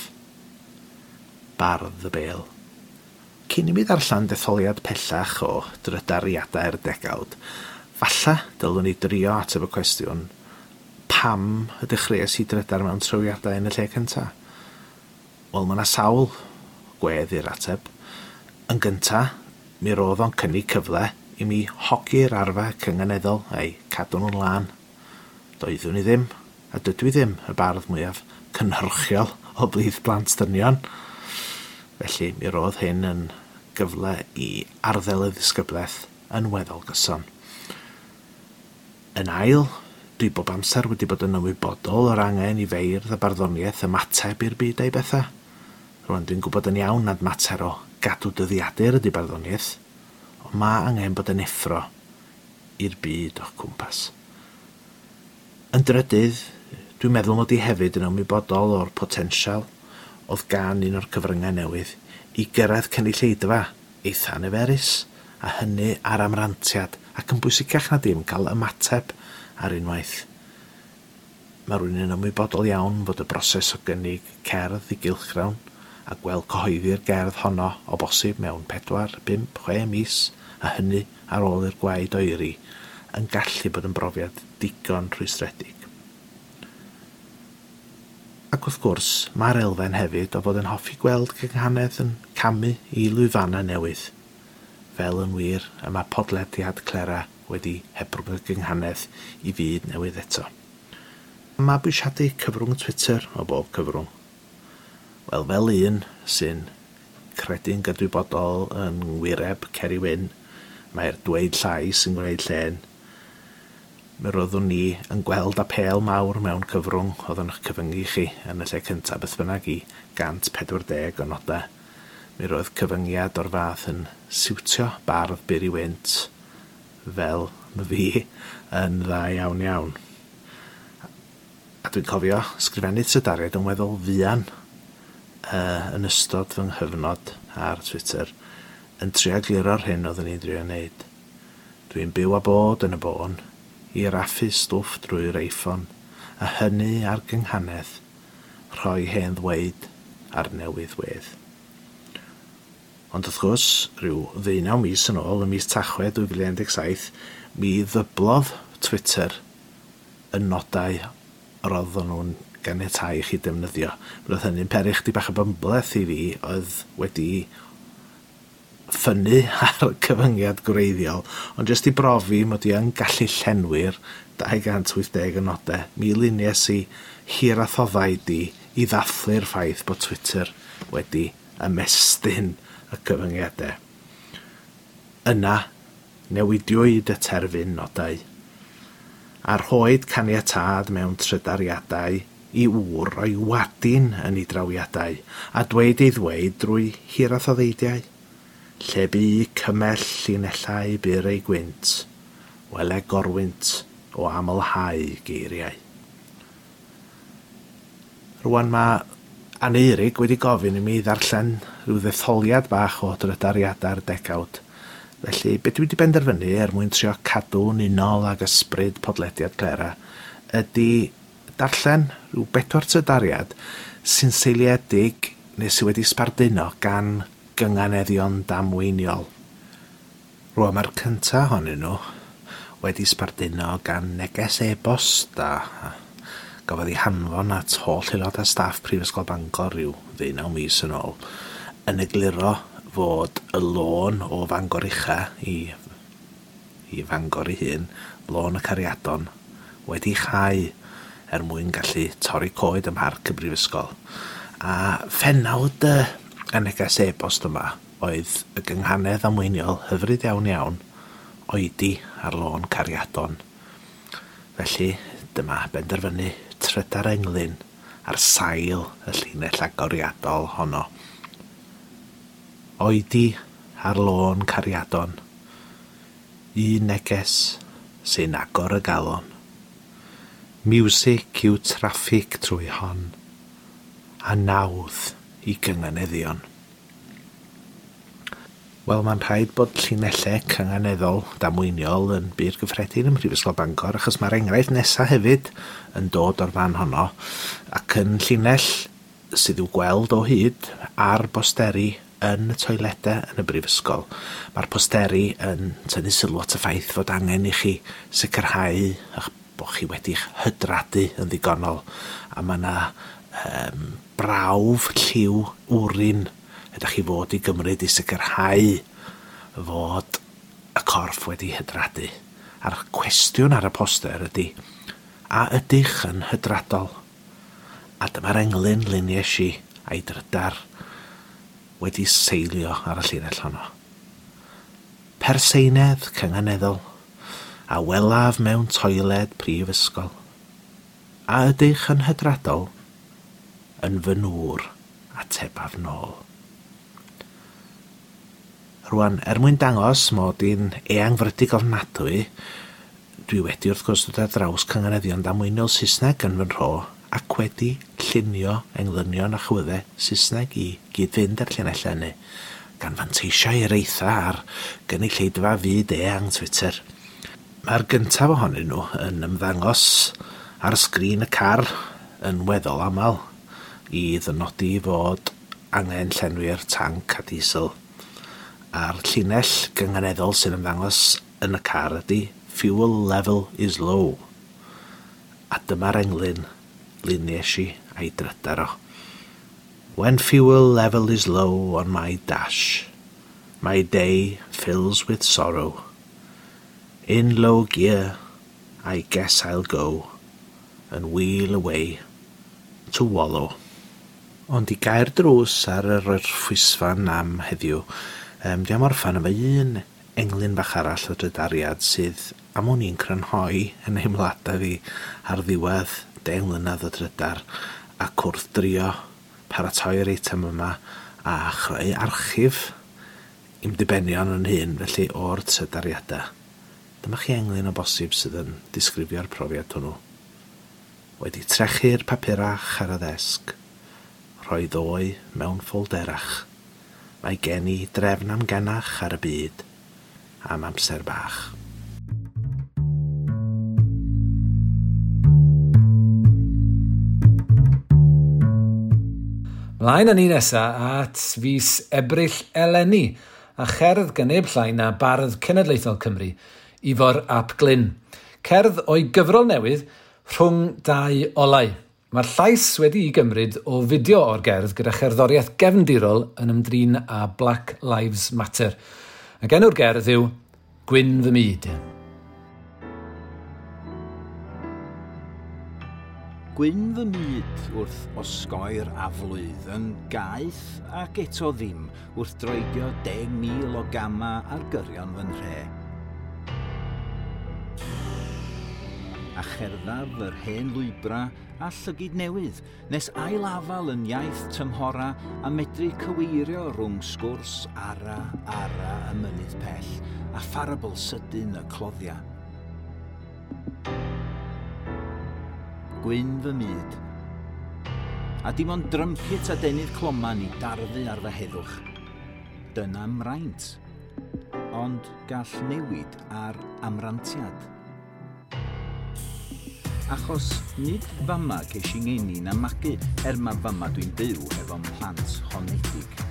Bardd y Bêl. Cyn i mi ddarllen detholiad pellach o drydariadau'r degawd, falla dylwn i drio ateb y cwestiwn pam y dechreuais i drydar mewn trawiadau yn y lle cyntaf? Wel, mae yna sawl gwedd i'r ateb. Yn gynta, mi roedd o'n cynnig cyfle i mi hogi'r arfa cynganeddol a'i cadw nhw'n lân. Doeddwn i ddim, a dydw i ddim, y bardd mwyaf cynhyrchiol o blith blant dynion. Felly, mi roedd hyn yn gyfle i arddel y ddisgyblaeth yn weddol gyson. Yn ail, dwi bob amser wedi bod yn ymwybodol o'r angen i feirdd a barddoniaeth ymateb i'r byd a'i bethau. Rwan, dwi'n gwybod yn iawn nad mater o gadw dyddiadur ydy barddoniaeth, ond mae angen bod yn effro i'r byd o'ch cwmpas. Yn drydydd, dwi'n meddwl mod i hefyd yn ymwybodol o'r potensial oedd gan un o'r cyfryngau newydd i gyrraedd cynulleidfa eitha niferus, a hynny ar amrantiad ac yn bwysicach na dim cael ymateb ar unwaith. Mae rhywun yn ymwybodol iawn fod y broses o gynnig cerdd i gylchgrawn a gweld cyhoeddi'r gerdd honno o bosib mewn 4, 5, 6 mis, a hynny ar ôl i'r gwaed oeri, yn gallu bod yn brofiad digon rhwystredig. Ac wrth gwrs, mae'r elfen hefyd o fod yn hoffi gweld cynghanedd yn camu i lwyfannau newydd. Fel yn wir, y mae podlediad Clera wedi hebrwng y gynghanedd i fyd newydd eto. Mabwysiadu cyfrwng Twitter o bob cyfrwng. Wel, fel un sy'n credu'n gydwybodol yn ngwireb Ceri Wyn, mae'r dweud llai sy'n gwneud llên. Mi roeddwn ni yn gweld apêl mawr mewn cyfrwng oedd yn eich cyfyngu chi yn y lle cyntaf beth bynnag i 140 o nodau. Mi roedd cyfyngiad o'r fath yn siwtio bardd byr i wynt fel my fi yn dda iawn iawn. A dwi'n cofio sgrifennu trydariad yn weddol fuan yn ystod fy nghyfnod ar Twitter yn trio gliro'r hyn oeddwn i'n drio wneud. Dwi'n byw a bod yn y bôn i raffu stwff drwy'r iPhone, a hynny ar gynghanedd, rhoi hen ddweud ar newydd wedd. Ond wrth gwrs, rhyw 19 mis yn ôl, ym mis Tachwedd 2017, mi ddyblodd Twitter y nodau roedden nhw'n ganiatáu i chi defnyddio. Roedd hynny'n peri chdi bach o bymbleth i fi oedd wedi ffynnu ar y cyfyngiad gwreiddiol, ond jyst i brofi mod i yn gallu llenwi'r 280 o nodau, mi luniais i hirathoddau di i ddathlu'r ffaith bod Twitter wedi ymestyn y cyfyngiadau. Yna, newidiwyd y terfyn nodau, a rhoed caniatâd mewn trydariadau i ŵr o'i wadin yn ei drawiadau, a dweud ei ddweud drwy hirathoddeidiau. Lle bu cymell llinellau byr ei gwynt, wele gorwynt o amlhau geiriau. Rwan mae Aneurig wedi gofyn i mi ddarllen rhyw ddetholiad bach o drydariadau'r degawd. Felly, be dwi wedi benderfynu er mwyn trio cadw'n unol ag ysbryd podlediad Clera ydy darllen rhyw bedwar trydariad sy'n seiliedig neu sydd wedi sbarduno gan gynganeddion damweiniol. Rwan mae'r cyntaf ohonyn nhw wedi sbarduno gan neges e-bost a gafodd ei hanfon at holl aelodau staff Prifysgol Bangor rhyw 19 mis yn ôl, yn egluro fod y lôn o Fangor Ucha i Fangor ei hun, lôn y Cariadon, wedi chau er mwyn gallu torri coed ym mharc y Brifysgol. A phenawd y neges e-bost yma oedd y gynghanedd amweiniol hyfryd iawn iawn oedi ar lôn Cariadon. Felly, dyma benderfynu trydar englyn ar sail y llinell agoriadol honno. Oedi ar lôn Cariadon, un neges sy'n agor y galon. Miwsig yw traffig trwy hon, a nawdd i gynganeddion. Wel, mae'n rhaid bod llinellau cynganeddol damweiniol yn bur gyffredin ym Mhrifysgol Bangor, achos mae'r enghraifft nesaf hefyd yn dod o'r fan honno, ac yn llinell sydd i'w gweld o hyd ar bosteri yn y toiledau yn y brifysgol. Mae'r posteri yn tynnu sylw at y ffaith fod angen i chi sicrhau eich bod chi wedi'ch hydradu yn ddigonol, a mae yna brawf lliw wrin ydych chi fod i gymryd i sicrhau fod y corff wedi hydradu. A'r cwestiwn ar y poster ydy, a ydych yn hydradol? A dyma'r englyn luniais i a'i drydar wedi seilio ar y llinell honno. Perseinedd cynganeddol, a welaf mewn toiled prifysgol. A ydych yn hydradol? Yn fy nŵr, atebaf nôl. Rwan, er mwyn dangos mod i'n eangfrydig ofnadwy, dwi wedi wrth gwrs dod ar draws cynganeddion damweiniol Saesneg yn fy nhro ac wedi llunio englynion a chwyddau Saesneg i gyd-fynd â'r llinellau hynny, gan fanteisio i'r eitha ar gynulleidfa fyd eang Twitter. Mae'r gyntaf ohonyn nhw yn ymddangos ar sgrin y car yn weddol aml i ddynodi fod angen llenwi'r tanc a diesel. A'r llinell gynganeddol sy'n ymddangos yn y car ydy fuel level is low. A dyma'r englyn luniais i a'i drydar o. When fuel level is low on my dash, my day fills with sorrow. In low gear, I guess I'll go and wheel away to wallow. Ond i gau'r drws ar yr orffwysfan am heddiw, dwi am orffan efo un englyn bach arall o drydariad sydd am wn i'n crynhoi yn nheimladau fi ar ddiwedd 10 mlynedd o drydar ac wrth drio paratoi'r eitem yma a chreu archif i'm dibenion yn hun, felly o'r trydariadau. Dyma chi englyn o bosib sydd yn disgrifio'r profiad hwnnw. Wedi trechu'r papurach ar y ddesg, rhoi ddoe mewn ffolderach. Mae gen i drefn amgenach ar y byd am amser bach. Mlaen â ni nesa at fis Ebrill eleni, a cherdd gan neb llai na Bardd Cenedlaethol Cymru, Ifor ap Glyn. Cerdd o'i gyfrol newydd Rhwng Dau Olau. Mae'r llais wedi'i gymryd o fideo o'r gerdd gyda cherddoriaeth gefndirol yn ymdrin â Black Lives Matter. Ac enw'r gerdd yw Gwyn Fy Myd. Gwyn fy myd wrth osgoi'r aflwydd yn gaeth ac eto ddim wrth droedio 10,000 o gama ar gyrion fy nhre. A cherddaf yr hen lwybra a llygid newydd, nes ailafal yn iaith tymhora a medru cyweirio rhwng sgwrs ara ara y mynydd pell a pharabl sydyn y cloddia. Gwyn fy myd, A dim ond drympit a denydd cloman i darfu ar fy heddwch. Dyna mraint. Ond gall newid ar amrantiad. Achos nid fama ces i ngeni na magu, er ma fama dwi'n byw efo'n plant honedig.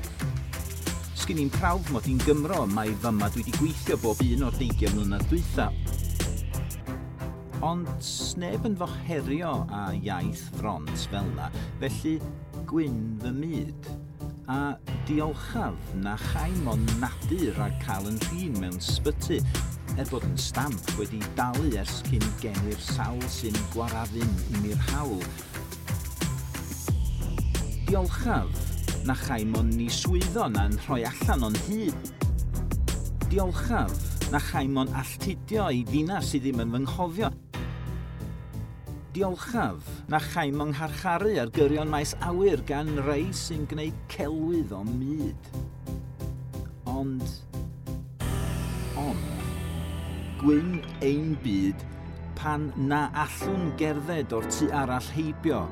Sgyn i'n prawf mod i'n Gymro, mae fama dwi wedi gweithio bob un o'r 20 mlynedd dwytha. Ond sneb yn fy herio â iaith front fel na, felly gwyn fy myd. A diolchaf na chai mon nadu rhag cael yn rhin mewn sbyty, er bod yn stamp wedi dalu ers cyn geni'r sawl sy'n gwarafun i mi'r hawl. Diolchaf na chai mon ni swyddo na'n rhoi allan o'n hyd. Diolchaf na chai mon alltudio i ddinas sydd ddim yn fy nghofio. Diolchaf na chai mon ngharcharu ar gyrion maes awyr gan rei sy'n gwneud celwydd o'm myd. Ond, gwyn ein byd pan na allwn gerdded o'r tu arall heibio,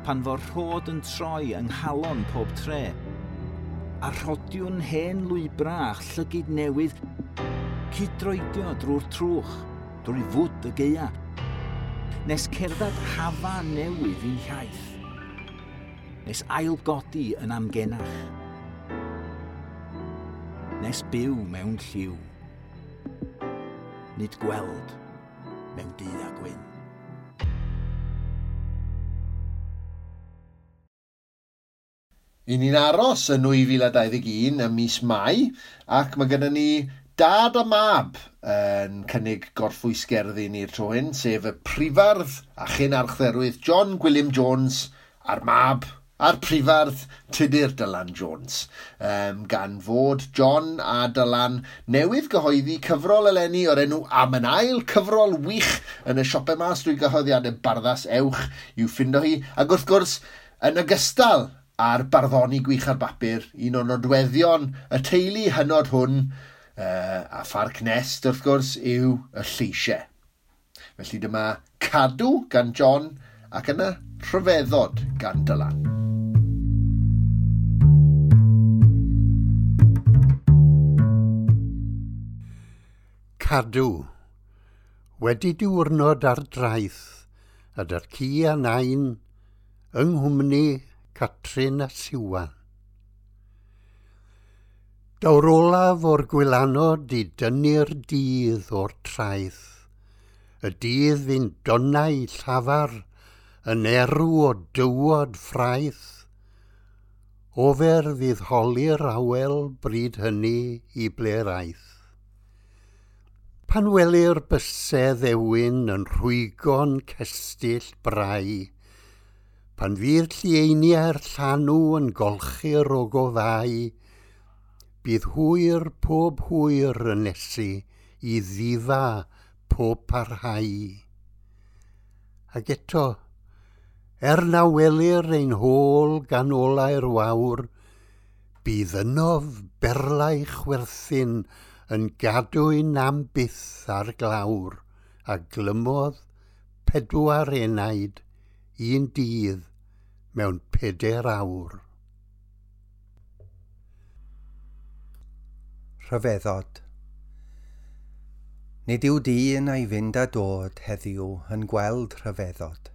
pan fo'r rhod yn troi yng nghalon pob tre, a rhodiwn hen lwybra a llygid newydd cydroedio drwy'r trwch, drwy fwd y gaea, nes cerdded hafa newydd i'n hiaith, nes ailgodi yn amgenach, nes byw mewn lliw, nid gweld mewn du a gwyn. I ni'n aros yn 2021 ym mis Mai, ac mae gennym ni dad a mab yn cynnig gorffwysgerddi ni'r tro hyn, sef y prifardd a chyn archdderwydd John Gwilym Jones a'r mab a'r prifardd Tudur Dylan Jones. Gan fod John a Dylan newydd gyhoeddi cyfrol eleni o'r enw Am yn Ail, cyfrol wych yn y siopau mas drwy gyhoeddiadau Barddas, ewch i'w ffindo hi. Ac wrth gwrs, yn ogystal a'r barddoni gwych ar bapur, un o nodweddion y teulu hynod hwn, a Pharc Nest, wrth gwrs, yw y lleisiau. Felly dyma Cadw gan John ac yna Rhyfeddod gan Dylan. Cadw. Wedi diwrnod ar draeth, a dy'r ci a nain, yng nghwmni Catrin a Siwan. Daw'r olaf o'r gwylanod i dynnu'r dydd o'r traeth. Y dydd fu'n donnau llafar yn erw o dywod ffraeth. Ofer fydd holi'r awel bryd hynny i ble'r aeth. Pan welir bysedd ewyn yn rhwygo'n cestyll brau, pan fydd llieiniau'r llanw yn golchi'r ogofau, bydd hwyr pob hwyr yn nesu i ddifa pob parhau. Ac eto, er na welir ein hôl gan olau'r wawr, bydd ynof berlau chwerthin yn gadwyn am byth ar glawr, a glymodd 4 enaid un dydd mewn 4 awr. Rhyfeddod. Nid yw dyn a'i fynd a dod heddiw yn gweld rhyfeddod.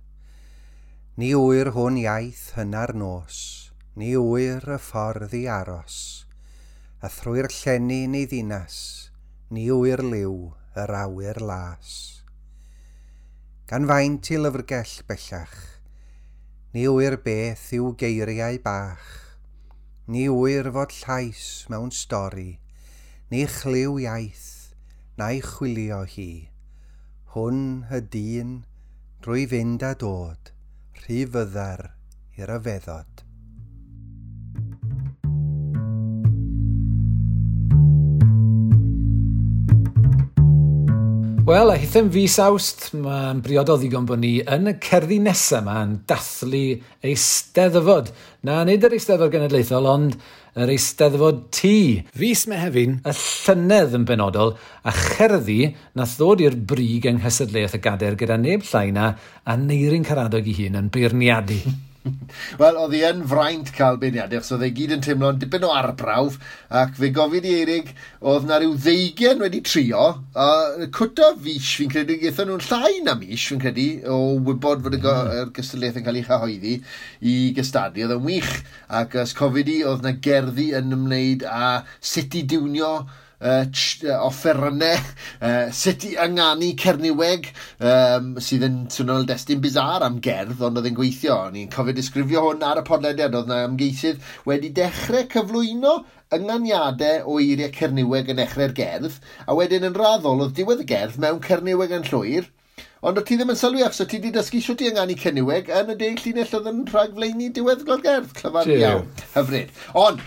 Ni ŵyr hwn iaith hynna'r nos, ni ŵyr y ffordd i aros, a thrwy'r llenni neu ddinas, ni ŵyr liw yr awyr las. Gan faint i lyfrgell bellach, ni ŵyr beth yw geiriau bach, ni ŵyr fod llais mewn stori, ni chlyw iaith, na'i chwilio hi. Hwn y dyn, drwy fynd a dod, rhy fyddar i'r ryfeddod. Wel, a hithen fis Awst, mae'n briodol ddigon bod ni yn y cerddi nesaf yma yn dathlu Eisteddfod. Na, nid yr Eisteddfod Genedlaethol, ond yr Eisteddfod T. Fis Mehefin, y llynedd yn benodol, a cherddi nath ddod i'r brig yng nghystadleuaeth y gadair gyda neb llai na Aneirin Karadog ei hun yn beirniadu. Wel, oedd hi yn fraint cael beirniadaeth, so oedd e gyd yn teimlo'n dipyn o arbrawf, ac fe gofyn i Eirig, oedd na rhyw 20 wedi trio, a cwta fis, fi'n credu, gaethon nhw'n llai na mis, fi'n credu, o wybod fod y gystadleuaeth yn cael ei chyhoeddi i gystadlu. Oedd yn wych, ac os cofyd i, oedd na gerddi yn ymwneud â sut i diwnio offerynnau, sut i ynganu Cerniweg, sydd yn swnio'n destun bizar am gerdd, ond oedd yn gweithio. O'n i'n cofio disgrifio hwn ar y podlediad, oedd na ymgeisydd wedi dechrau cyflwyno ynganiadau o eiriau Cerniweg yn dechrau'r gerdd, a wedyn yn raddol oedd diwedd y gerdd mewn Cerniweg yn llwyr, ond o ti ddim yn sylwi achos o ti wedi dysgu sut i ynganu Cerniweg yn y 10 llinell oedd yn rhagflaenu diweddglo'r gerdd. Clyfar iawn, hyfryd. Ond,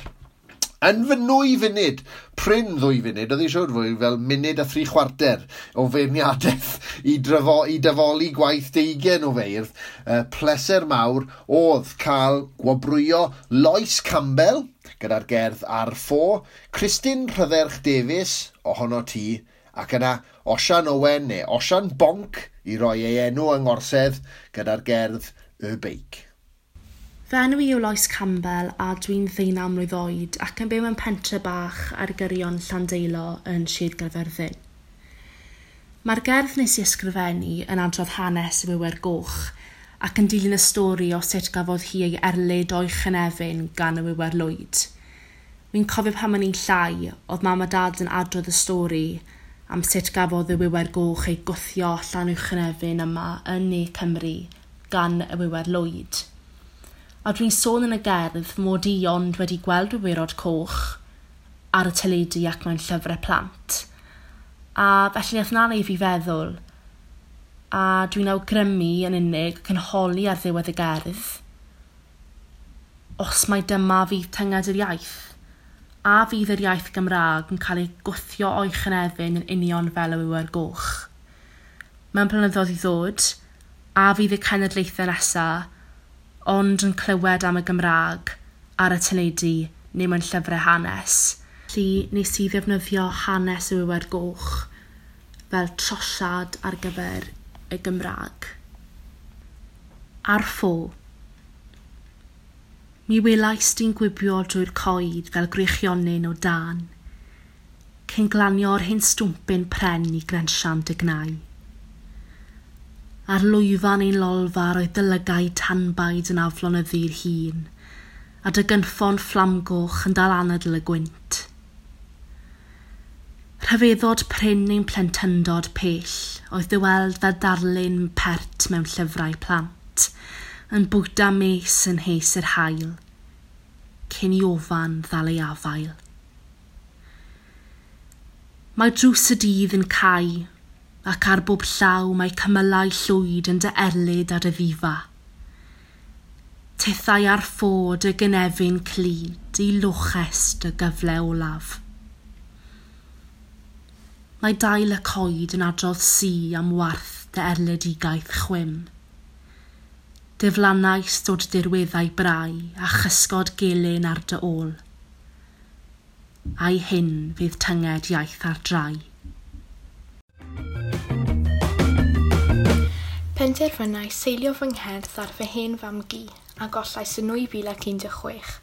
yn fy 2 funud, prin 2 funud, oedd hi siŵr fwy fel munud a 3/4 o feirniadaeth i dyfoli gwaith 20 o feirdd, pleser mawr oedd cael gwobrwyo Lois Campbell gyda'r gerdd Ar Ffo, Christine Rhydderch Davies, Ohono Ti, ac yna Osian Owen neu Osian Bonc i roi ei enw yng Ngorsedd gyda'r gerdd Y Beic. Fy enw i yw Lois Campbell a dwi'n 19 mlwydd oed ac yn byw mewn pentre bach ar gyrion Llandeilo yn Sir Gaerfyrddin. Mae'r gerdd nes i ysgrifennu yn adrodd hanes y Wiwer Goch ac yn dilyn y stori o sut gafodd hi ei erlid o'i chynefin gan y Wiwer Lwyd. Wi'n cofio pan o'n i'n llai, oedd mam a dad yn adrodd y stori am sut gafodd y Wiwer Goch ei gwthio allan o'i chynefin yma yn Ne Cymru gan y Wiwer Lwyd. A dwi'n sôn yn y gerdd mod i ond wedi gweld wywyrod coch ar y teledu ac mewn llyfrau plant. A felly nath 'na wneud fi feddwl, a dwi'n awgrymu yn unig ac yn holi ar ddiwedd y gerdd, os mai dyma fydd tynged yr iaith, a fydd yr iaith Gymraeg yn cael ei gwthio o'i chynefin yn union fel y Wiwer Goch. Mewn blynyddoedd i ddod, a fydd y cenedlaethau nesaf ond yn clywed am y Gymraeg ar y teledu neu mewn llyfrau hanes. Felly nes i ddefnyddio hanes y Wiwer Goch fel trosiad ar gyfer y Gymraeg. Ar ffo. Mi welais di'n gwibio drwy'r coed fel gwreichionyn o dân, cyn glanio'r hen stwmpyn pren i grensian dy gnau. Ar lwyfan ein lolfa roedd dy lygaid tanbaid yn aflonyddu'r hun, a dy gynffon fflamgoch yn dal anadl y gwynt. Rhyfeddod prin ein plentyndod pell oedd dy weld fel darlun pert mewn llyfrau plant, yn bwyta mes yn hes yr haul, cyn i ofan ddal ei afael. Mae drws y dydd yn cau, ac ar bob llaw mae cymylau llwyd yn dy erlid a dy ddifa. Tithau ar ffo dy gynefin clyd i loches dy gyfle olaf. Mae dail y coed yn adrodd si am warth dy erledigaeth chwim. Diflannais dod dirweddau brau a chysgod gelyn ar dy ôl. A'i hyn fydd tynged iaith ar drai. Penderfynais seilio fy ngherdd ar fy hen fam-gu a gollais yn 2016.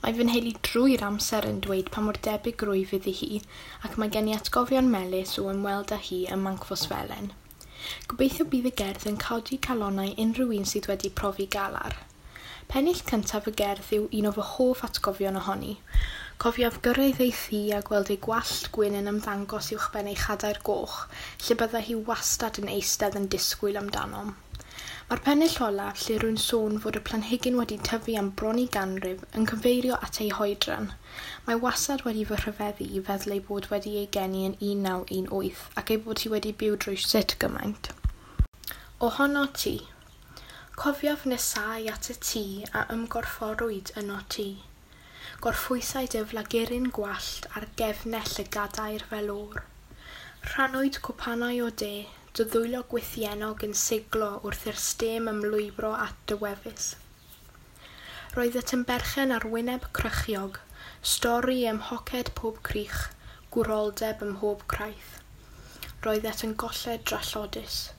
Mae fy nheulu drwy'r amser yn dweud pa mor debyg rwyf iddi hi ac mae gen i atgofion melys o ymweld â hi ym Mancfosfelen. Gobeithio bydd y gerdd yn codi calonnau unrhyw un sydd wedi profi galar. Pennill cyntaf y gerdd yw un o fy hoff atgofion ohoni. Cofiaf gyrraedd ei thŷ a gweld ei gwallt gwyn yn ymddangos uwchben ei chadair goch, lle byddai hi wastad yn eistedd yn disgwyl amdanom. Mae'r pennill olaf, lle rwy'n sôn fod y planhigyn wedi tyfu am bron i ganrif, yn cyfeirio at ei hoedran. Mae wastad wedi fy rhyfeddu i feddwl ei bod wedi ei geni yn 1918 ac ei bod hi wedi byw drwy sut gymaint. Ohono ti. Cofiaf nesau at y tŷ a ymgorfforwyd yno ti. Gorffwysai dy flaguryn gwallt ar gefnell y gadair fel o'r. Rhannwyd cwpanau o de, dy ddwylo gwythiennog yn siglo wrth i'r stêm ymlwybro at dy wefus. Roeddet yn berchen ar wyneb crychiog, stori ym mhoced pob crych, gwroldeb ym mhob craith. Roeddet yn golled drallodus.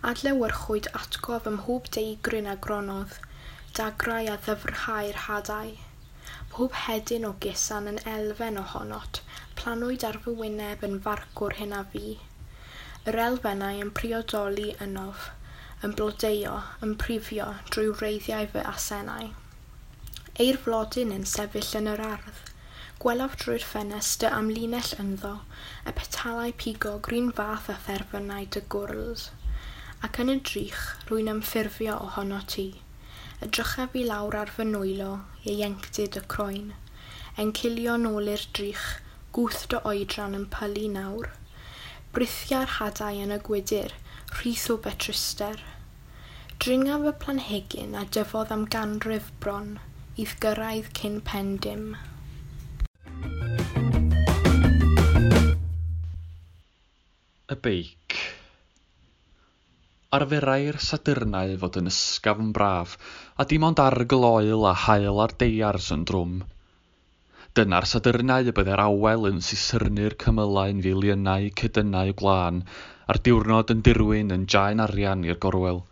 Adlewyrchwyd atgof ym mhob deigryn a gronodd, Dagrau a ddyfrhau'r hadau. Pob hedyn o gusan yn elfen ohonot, planwyd ar fy wyneb yn farcwr hyn a fi. Yr elfennau yn priodoli ynof, yn blodeuo, yn prifio drwy wreiddiau fy asennau. Eir flodyn yn sefyll yn yr ardd. Gwelaf drwy'r ffenest dy amlinell ynddo, y petalau pigog run fath â therfynau dy gwrls. Ac yn y drych, rwy'n ymffurfio ohono ti. Edrychaf i lawr ar fy nwylo, ieuenctid y croen. Encilio nôl i'r drych, gwth dy oedran yn pylu nawr. Brithia'r hadau yn y gwydr, rhith o betruster. Dringaf y planhigyn a dyfodd am ganrif bron, i'th gyrraedd cyn pen dim. Y beic. Arferai'r Sadyrnau fod yn ysgafn braf, a dim ond arogl oel a haul ar deiars yn drwm. Dyna'r Sadyrnau y byddai'r awel yn sisyrnu'r cymylau'n filiynau cedynnau gwlân, a'r diwrnod yn dirwyn yn jaen arian i'r gorwel.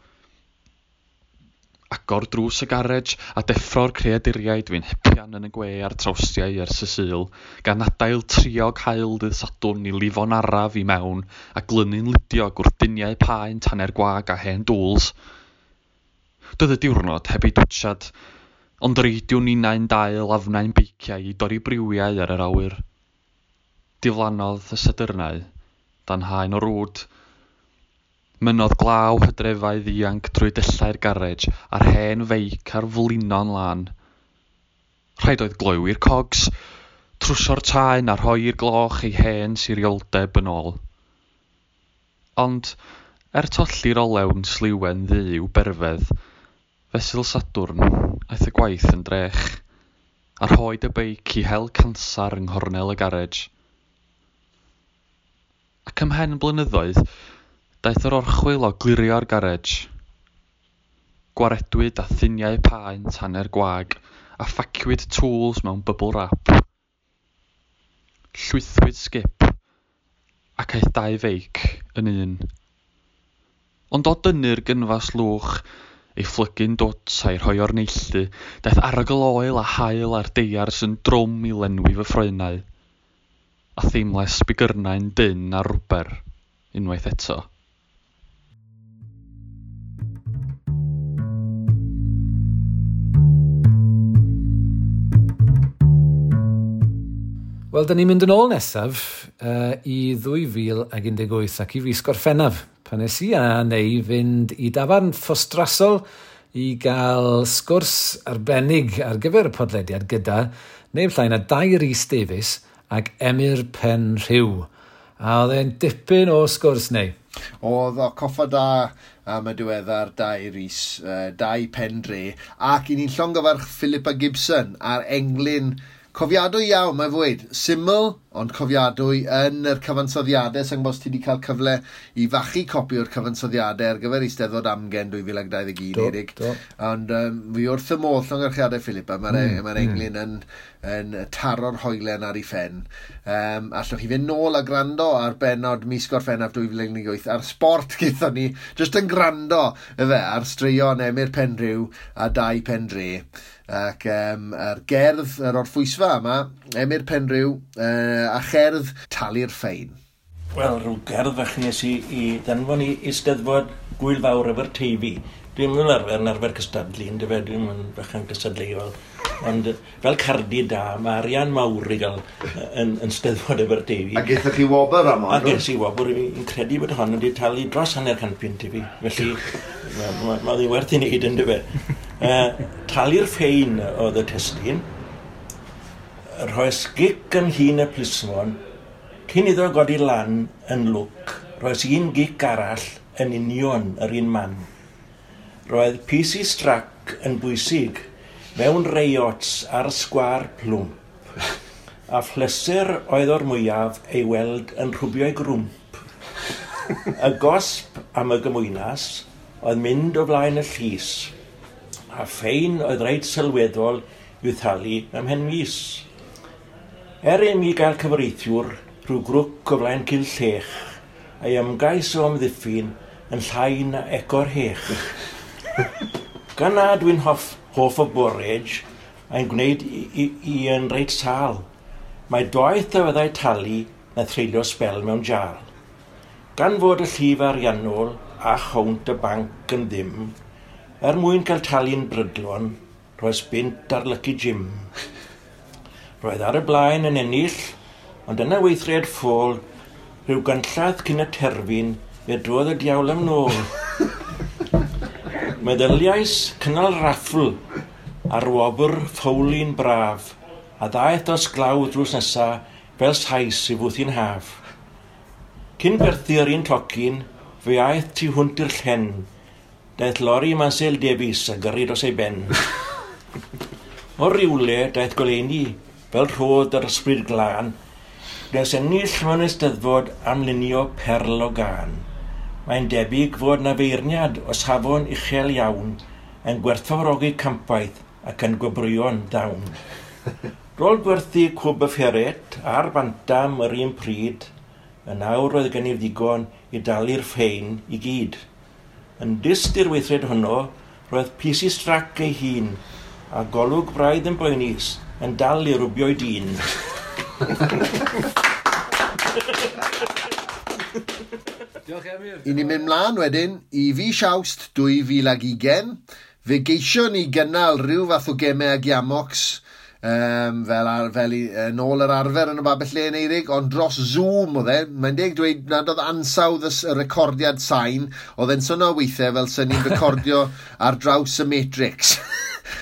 Agor drws y garej a deffro'r creaduriaid fu'n hepian yn y gwe a'r trawstiau ers y Sul, gan adael triog haul dydd Sadwrn i lifo'n araf i mewn a glynu'n ludiog wrth duniau paent hanner gwag a hen dŵls. Doedd y diwrnod heb ei dwtsiad, ond reidiwn ninnau'n dail afnau'n beiciau i dorri briwiau ar yr awyr. Diflannodd y Sadyrnau dan haen o rwd. Mynnodd glaw hydrefau ddianc drwy dyllau'r garej a'r hen feic ar flino'n lân. Rhaid oedd gloywi'r cogs, trwsio'r taen a rhoi i'r gloch ei hen sirioldeb yn ôl. Ond, er tolli'r olew'n sliwen ddu i'w berfedd, fesul Sadwrn, aeth y gwaith yn drech, a rhoed y beic i hel cansar yng nghornel y garej. Ac ymhen blynyddoedd, daeth yr orchwyl o glirio'r garej. Gwaredwyd â thuniau paent hanner gwag a phaciwyd tools mewn bubble wrap. Llwythwyd sgip ac aeth dau feic yn un. Ond o dynnu'r gynfas lwch, ei phlygu'n dwt a'i rhoi o'r neilltu, daeth arogl oel a haul ar deiars yn drwm i lenwi fy ffroenau, a theimlais bigyrnau'n dynn ar rwber unwaith eto. Wel, da ni'n mynd yn ôl nesaf i 2018 ac i fis Gorffennaf, pan nes i a neu fynd i dafarn Ffostrasol i gael sgwrs arbennig ar gyfer y podlediad gyda neb llai na Dai Rhys Davies ac Emyr Penrhyw. A oedd e'n dipyn o sgwrs neu. Oedd o coffa da am y diweddar Dai Rhys, Dai Pendre, ac i ni'n llongyfarch Philippa Gibson a'r englyn cofiadwy iawn, mae fwyd. Syml, ond cofiadwy yn yr cyfansoddiadau. Sa'n gwybod os ti wedi cael cyfle i fachu copi o'r cyfansoddiadau ar gyfer Eisteddfod Amgen 2021, Erik. Ond fi wrth y modd llongyfarchiadau Philippa. Mae'r englyn yn taro'r hoelen ar ei phen. Allwch chi fynd nôl a gwrando ar bennod mis Gorffennaf 2018 ar Sport gaethon ni, jyst yn gwrando efe, ar straeon Emyr Penrhyw a Dai Pendre. Ac ar gerdd yr orffwysfa yma, Emyr Penrhyw a cherdd Talu'r Ffein. Wel, rhyw gerdd fach nes i ddanfon i Eisteddfod Gwyl Fawr Aberteifi. Dwi'n mynd arfer yn arfer cystadlu, yndyfe, dwi'n mynd bachan cystadleuol. Ond fel cardi da, mae arian mawr i gael yn Steddfod Aberteifi. A gaethoch chi wobr am hon? A ges i wobr, fi'n credu bod hon wedi talu dros £50 i fi. Felly, mae ddi'n werth i wneud, yndyfe. Talu'r ffein oedd y testun, rhoes gic yn hun y plismon, cyn iddo godi lan yn lwc, rhoes un gic arall yn union yr un man. Roedd PC Strack yn bwysig mewn reiots ar sgwâr plwmp, a phleser oedd o'r mwyaf ei weld yn rhwbio'i grwmp. Y gosb am y gymwynas oedd mynd o flaen y llys, a ffein oedd reit sylweddol i'w thalu ymhen mis. Er i mi gael cyfreithiwr rhyw grwc o flaen cil llech, a'i ymgais o amddiffyn yn llai na ego'r hech. Gan na dwi'n hoff, hoff o borage, mae'n gwneud i, i, i yn reit sal. Mae doeth a fyddai talu na threulio sbel mewn jal. Gan fod y llif ariannol a chownt y banc yn ddim, er mwyn cael talu'n brydlon, roes bunt ar Lucky Jim. Roedd ar y blaen yn ennill, ond yna weithred ffôl, rhyw ganllath cyn y terfyn, fe drodd y diawl am nôl. Meddyliais cynnal raffl ar wobr ffowlin braf, a ddaeth dros glaw drws nesa fel sais i fwthi'n haf. Cyn gwerthu'r un tocyn, fe aeth tu hwnt i'r llen. Daeth lori Mansel Davies a gyrru dros ei ben. O rywle daeth goleuni, fel rhodd yr ysbryd glân, nes ennill mewn eisteddfod am lunio perl o gân. Mae'n debyg fod na feirniad o safon uchel iawn yn gwerthfawrogi campwaith ac yn gwobrwyo'n dawn. Rôl gwerthu cwb y fferet a'r bantam yr un pryd, yn awr roedd gennyf ddigon i dalu'r ffein i gyd. Yn dyst i'r weithred honno, roedd PC Strac ei hun a golwg braidd yn boenus yn dal i rwbio'i dyn. Diolch Emyr. I ni'n mynd mlaen wedyn i fis Awst 2020. Fe geisio ni gynnal rhyw fath o gemau ag Iamox fel, ar, fel i, yn ôl yr arfer yn y babell len Eirig, ond dros Zoom oedd e. Mae'n deg dweud nad oedd ansawdd y, y recordiad sain, oedd e'n swnio weithiau fel sy'n ni'n recordio ar draws y Matrix.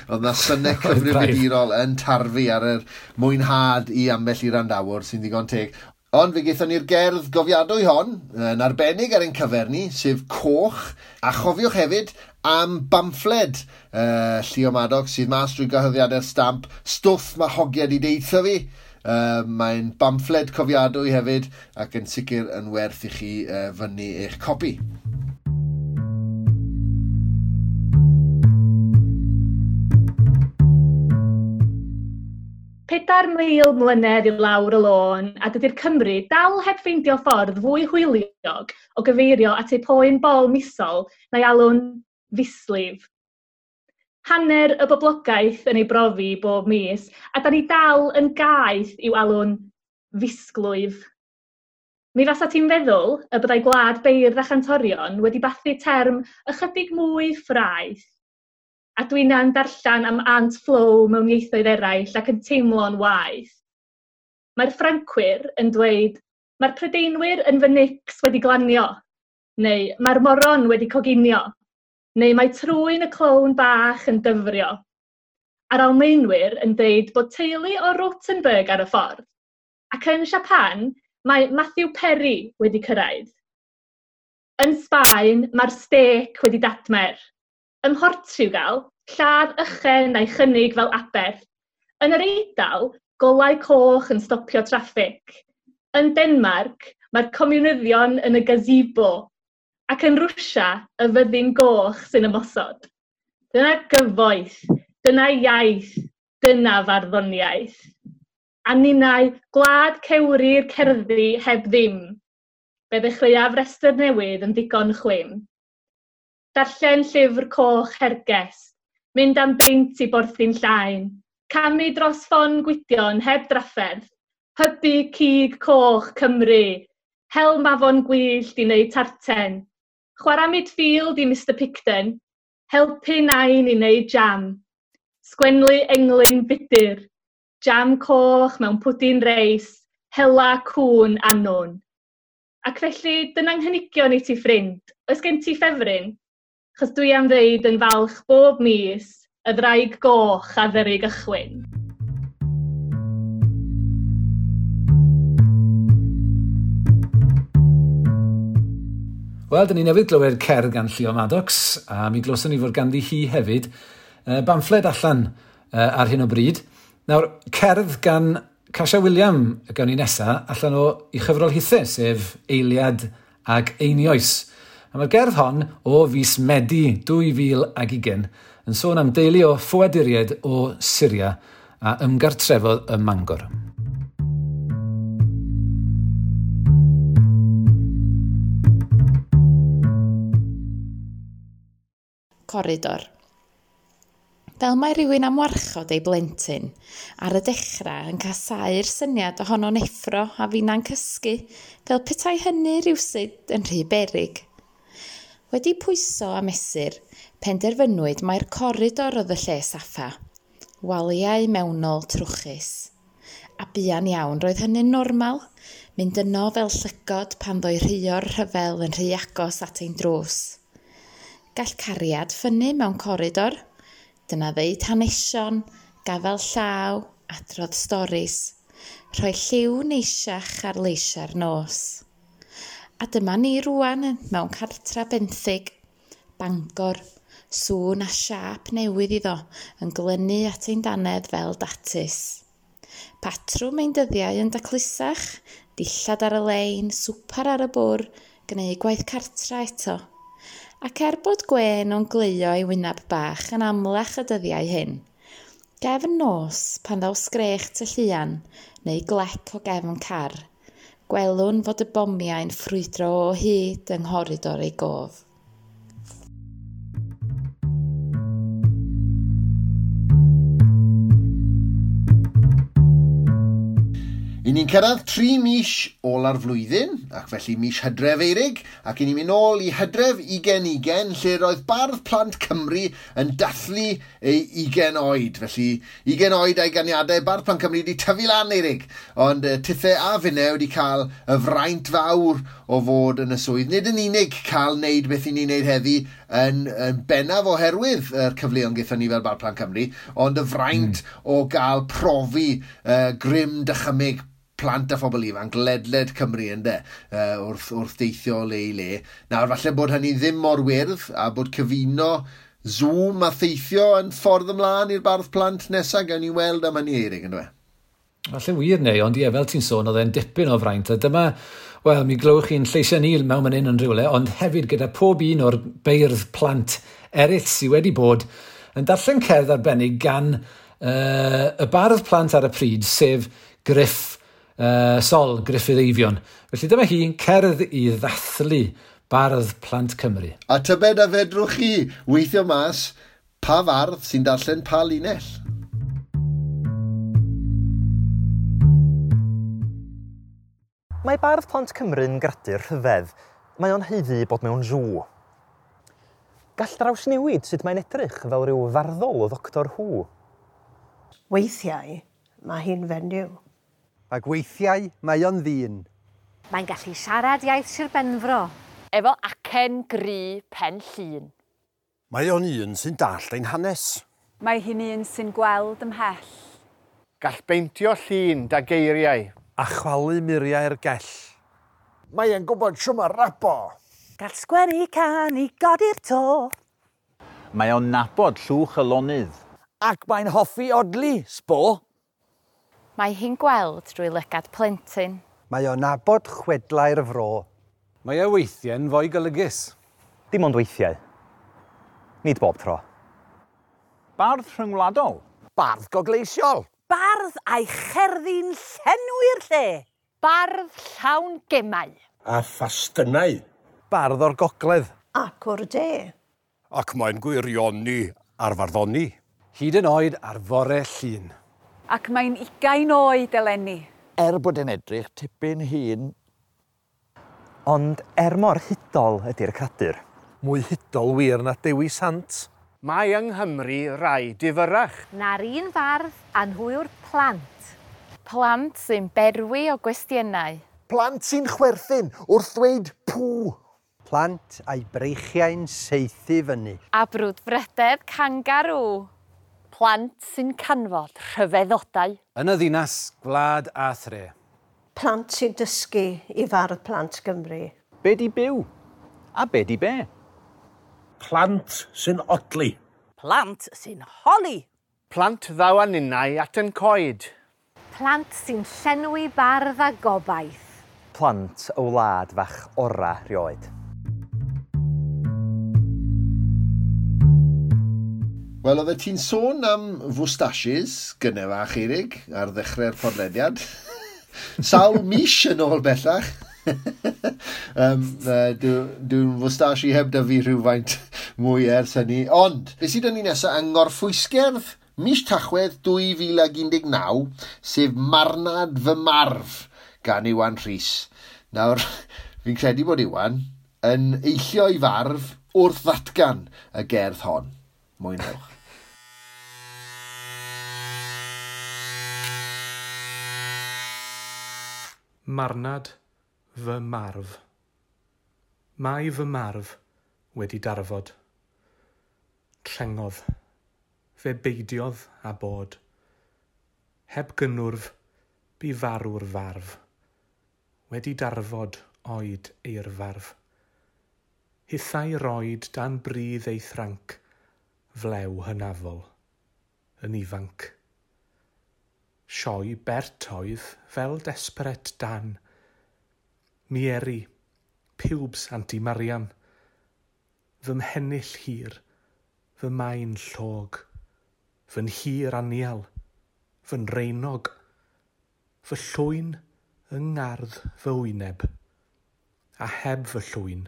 Oedd na synnau cyfrifiadurol yn tarfu ar yr mwynhad i ambell i randawr sy'n ddigon teg. Ond fe gaethon ni'r gerdd gofiadwy hon, yn arbennig ar ein cyfer ni, sef Coch, a chofiwch hefyd am bamffled Llio Maddox sydd mas drwy gyhoeddiadau'r stamp, stwff mae hogiad i deitha fi. Mae'n bamffled cofiadwy hefyd ac yn sicr yn werth i chi fyny eich copi. Pedair mil mlynedd i lawr y lôn, a dydy'r Cymru dal heb ffeindio ffordd fwy hwyliog o gyfeirio at eu poen bol misol na'i alw'n fislif. Hanner y boblogaeth yn ei brofi bob mis, a da ni dal yn gaeth i'w alw'n fisglwyf. Mi fasa ti'n feddwl y byddai gwlad beirdd a chantorion wedi bathu term ychydig mwy ffraeth. A dwi'n darllen am Aunt Flo mewn ieithoedd eraill ac yn teimlo'n waeth. Mae'r Ffrancwyr yn dweud, mae'r Prydeinwyr yn fy nics wedi glanio, neu mae'r moron wedi coginio, neu mae trwyn y clown bach yn dyfrio. A'r Almaenwyr yn dweud bod teulu o Rothenburg ar y ffordd. Ac yn Japan, mae Matthew Perry wedi cyrraedd. Yn Sbaen, mae'r stêc wedi datmer. Ym Mhortiwgal, lladd ychen a'i chynnig fel aberth. Yn yr Eidal, golau coch yn stopio traffig. Yn Denmark, mae'r comiwnyddion yn y gazebo. Ac yn Rwsia, y fyddin goch sy'n ymosod. Dyna gyfoeth, dyna iaith, dyna farddoniaeth. A ninnau, gwlad cewri'r cerddi heb ddim. Fe ddechreuaf restr newydd yn ddigon chwim. Darllen llyfr coch Hergest, mynd am beint i Borthi'n Llaen, camu dros ffon Gwydion heb drafferth, hybu cig coch Cymru, hel mafon gwyllt i wneud tarten, chwarae midfield i Mr Picton, helpu nain i wneud jam, sgwenlu englyn budur, jam coch mewn pwdin reis, hela cŵn annwn. Ac felly, dyna'n nghynigion i ti ffrind. Oes gen ti ffefryn? Chos dwi am ddeud yn falch bob mis, y ddraig goch a ddyru gychwyn. Wel, dyn ni newydd glywed cerdd gan Llio Maddox, a mi glywson ni fod ganddi hi hefyd bamffled allan ar hyn o bryd. Nawr, cerdd gan Casia William gawn ni nesa allan o ei chyfrol hithe, sef Eiliad ag Einioes. A mae'r gerdd hon o fis Medi 2020 yn sôn am deulu o ffoaduriaid o Syria a ymgartrefodd ym Mangor. Coridor. fel mae rhywun am warchod ei blentyn, ar y dechrau yn casáu'r syniad ohono'n effro a finna'n cysgu, fel petai hynny rywsut yn rhy beryg. Wedi pwyso a mesur, penderfynwyd mai'r coridor oedd y lle saffa, waliau mewnol trwchus. A buan iawn roedd hynny'n normal, mynd yno fel llygod pan ddoi rhuo'r rhyfel yn rhy agos at ein drws. Gall cariad ffynnu mewn coridor. Dyna ddeud hanesion, gafel llaw, adrodd storis, rhoi lliw neisiach ar leisiau'r nos. A dyma ni rwan mewn cartra benthyg, Bangor, sŵn a siâp newydd iddo yn glynu at ein dannedd fel datus. Patrwm ein dyddiau yn daclusach, dillad ar y lein, swper ar y bwr, gwneud gwaith cartra eto. Ac er bod gwên o'n gleio ei wyneb bach yn amlach y dyddiau hyn, gefn nos pan ddaw sgrech tylluan neu glec o gefn car, gwelwn fod y bomiau'n ffrwydro o hyd yng nghoridor ei gof. I ni'n cyrraedd 3 mis ola'r flwyddyn, ac felly mis Hydref Eirig, ac i ni'n mynd nôl i Hydref 2020, lle roedd Bardd Plant Cymru yn dathlu ei 20 oed. Felly 20 oed a'i ganiadau, Bardd Plant Cymru wedi tyfu lan Eirig, ond tithe a finne wedi cael y fraint fawr o fod yn y swydd. Nid yn unig cael wneud beth i ni'n wneud heddi yn bennaf oherwydd yr cyfleon gaethon ni fel Bardd Plant Cymru, ond y fraint o gael profi grym dychymyg plant a phobl ifanc ledled Cymru ynde, wrth deithio le i le. Nawr, falle bod hynny ddim mor wyrdd a bod cyfuno Zoom a theithio yn ffordd ymlaen i'r Bardd Plant nesaf, gawn ni weld am hynny Eirig, yndyfe? Falle wir neu, ond ie, fel ti'n sôn, oedd e'n dipyn o fraint, a dyma, wel, mi glywch chi'n lleisiau ni mewn man hyn yn rhywle, ond hefyd gyda pob un o'r beirdd plant eraill sydd wedi bod yn darllen cerdd arbennig gan y bardd plant ar y pryd, sef Gruff Sol, Gruffydd Eifion. Felly dyma hi, cerdd i ddathlu Bardd Plant Cymru. A tybed a fedrwch chi weithio mas pa fardd sy'n darllen pa linell? Mae Bardd Plant Cymru'n gradur rhyfedd. Mae o'n haeddu bod mewn sŵ. Gall drawsnewid sut mae'n edrych fel rhyw farddol o Ddoctor Who. Weithiau, mae hi'n fenyw. Ac weithiau mae o'n ddyn. Mae'n gallu siarad iaith Sir Benfro. Efo acen gry pen llun. Mae o'n un sy'n dallt ein hanes. Mae hi'n un sy'n gweld ymhell. Gall beintio llun da geiriau. A chwalu muriau'r gell. Mae e'n gwybod shwd ma rapo. Gall sgwennu can i godi'r to. Mae o'n nabod llwch y lonydd. Ac mae'n hoffi odli, sbo. Mae hi'n gweld drwy lygad plentyn. Mae o'n nabod chwedlau'r fro. Mae e weithiau'n fwy golygus. Dim ond weithiau. Nid bob tro. Bardd rhyngwladol. Bardd gogleisiol. Bardd a'i cherddi'n llenwi'r lle. Bardd llawn gemau. A phastynau. Bardd o'r gogledd. Ac o'r de. Ac mae'n gwirioni ar farddoni. Hyd yn oed ar fore llun. Ac mae'n 20 oed eleni. Er bod e'n edrych tipyn hŷn. Ond er mor hudol ydy'r cradur. Mwy hudol wir na Dewi Sant. Mae yng Nghymru rai difyrrach. Na'r un fardd a nhw yw'r plant. Plant sy'n berwi o gwestiynau. Plant sy'n chwerthin wrth ddweud pŵ. Plant a'i breichiau'n saethu fyny. A brwdfrydedd kangaroo. Plant sy'n canfod rhyfeddodau. Yn y ddinas, gwlad a thre. Plant sy'n dysgu i Fardd Plant Gymru. Be di byw? A be di be? Plant sy'n odli. Plant sy'n holi. Plant ddaw â ninnau at yn coed. Plant sy'n llenwi bardd a gobaith. Plant o wlad fach ora rioed. Wel, oeddet ti'n sôn am fwstashes gynne fach, Eirig, ar ddechrau'r podlediad. Sawl mis yn ôl bellach. Dwi'n fwstashi heb da fi rhywfaint mwy ers hynny. Ond, beth sydd yn ni nesaf yng Ngorffwysgerdd mis Tachwedd 2019, sef Marnad Fy Marf gan Iwan Rhys. Nawr, fi'n credu bod Iwan yn eillio i farf wrth ddatgan y gerdd hon. Mwynhewch. Marnad fy marf. Mae fy marf wedi darfod. Trengodd. Fe beidiodd a bod. Heb gynnwrf, bu farw'r farf. Wedi darfod oed eirfarf. Hithau roed dan bridd ei thranc, flew hynafol, yn ifanc. Sioe bert oedd fel desperate Dan. Mieri, pubes Anti Marian. Fy mhennill hir, fy maen llog, fy nhir anial, fy nreinog, fy llwyn yng ngardd fy wyneb, a heb fy llwyn,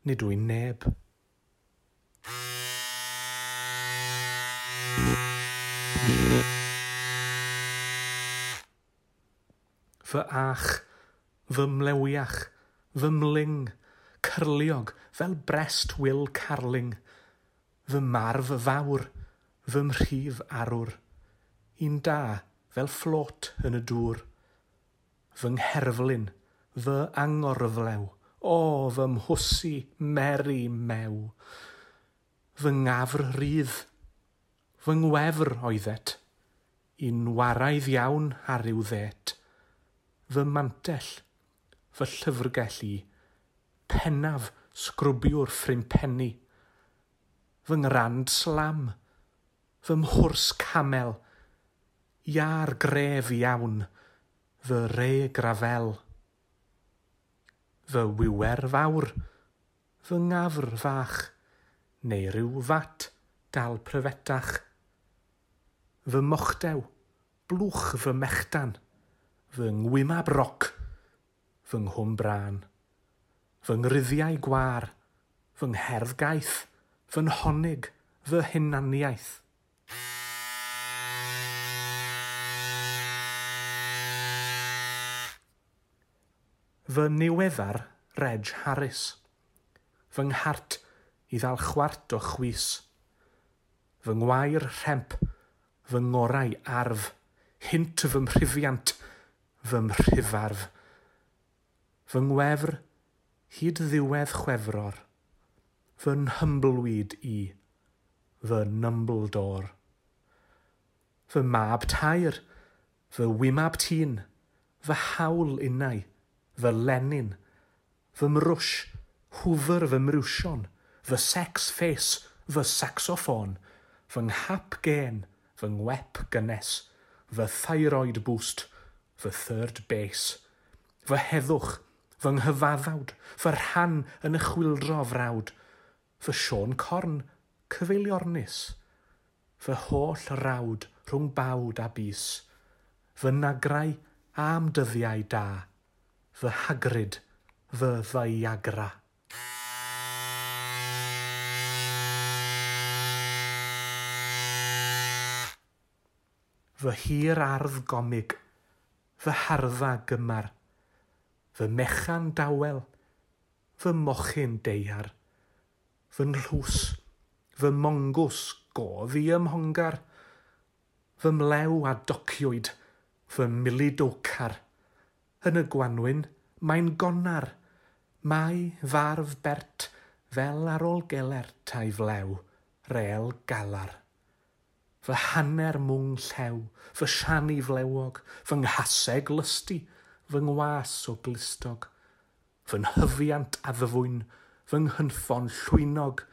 nid wy'n neb. Fy ach, fy mlewiach, fy mling, cyrliog fel brest Will Carling, fy marf fawr, fy mhrif arwr, un da fel fflot yn y dŵr, fy ngherflun, fy angorflew, o fy mhwsi meri mew, fy ngafr rydd, fy ngwefr oeddet, un waraidd iawn ar ryw ddet, fy mantell, fy llyfrgell i, pennaf sgrwbiwr ffrimpenni, fy ngrand slam, fy mhwrs camel, iar gref iawn, fy re grafel. Fy wiwer fawr, fy ngafr fach, neu rhyw fat dal pryfetach. Fy mochdew, blwch fy mechdan, fy ngwymab roc, fy nghwm brân, fy ngruddiau gwar, fy ngherdd gaeth, fy nhonig, fy hunaniaeth. Fy niweddar Reg Harris, fy nghart i ddal chwart o chwys, fy ngwair rhemp, fy ngorau arf, hynt fy mhrifiant, fy mhrifarf. Fy ngwefr hyd ddiwedd Chwefror, fy nhymbleweed i, fy Numbledore. Fy mab tair, fy wymab tîn, fy hawl innau, fy Lenin, fy mrwsh, hwfr fy mrwsion, fy sex face, fy saxoffon, fy nghap gen, fy ngwep gynnes, fy thyroid boost, fy third base, fy heddwch, fy nghyfaddawd, fy rhan yn y chwyldro frawd, fy Siôn Corn, cyfeiliornus, fy holl rawd rhwng bawd a bys, fy nagrau am dyddiau da, fy Hagrid, fy Viagra. Fy hir ardd gomig, fy hardda gymar, fy mechan dawel, fy mochyn deiar, fy nhlws, fy mongws go ddi ymhongar, fy mlew a dociwyd, fy milidowcar. Yn y gwanwyn, mae'n gonar, mae farf bert fel ar ôl gelert a'i flew, rel galar. Fy hanner mwng llew, fy siani flewog, fy nghaseg lysti, fy ngwas o glustog, fy nhyfiant addfwyn, fy nghynffon llwynog,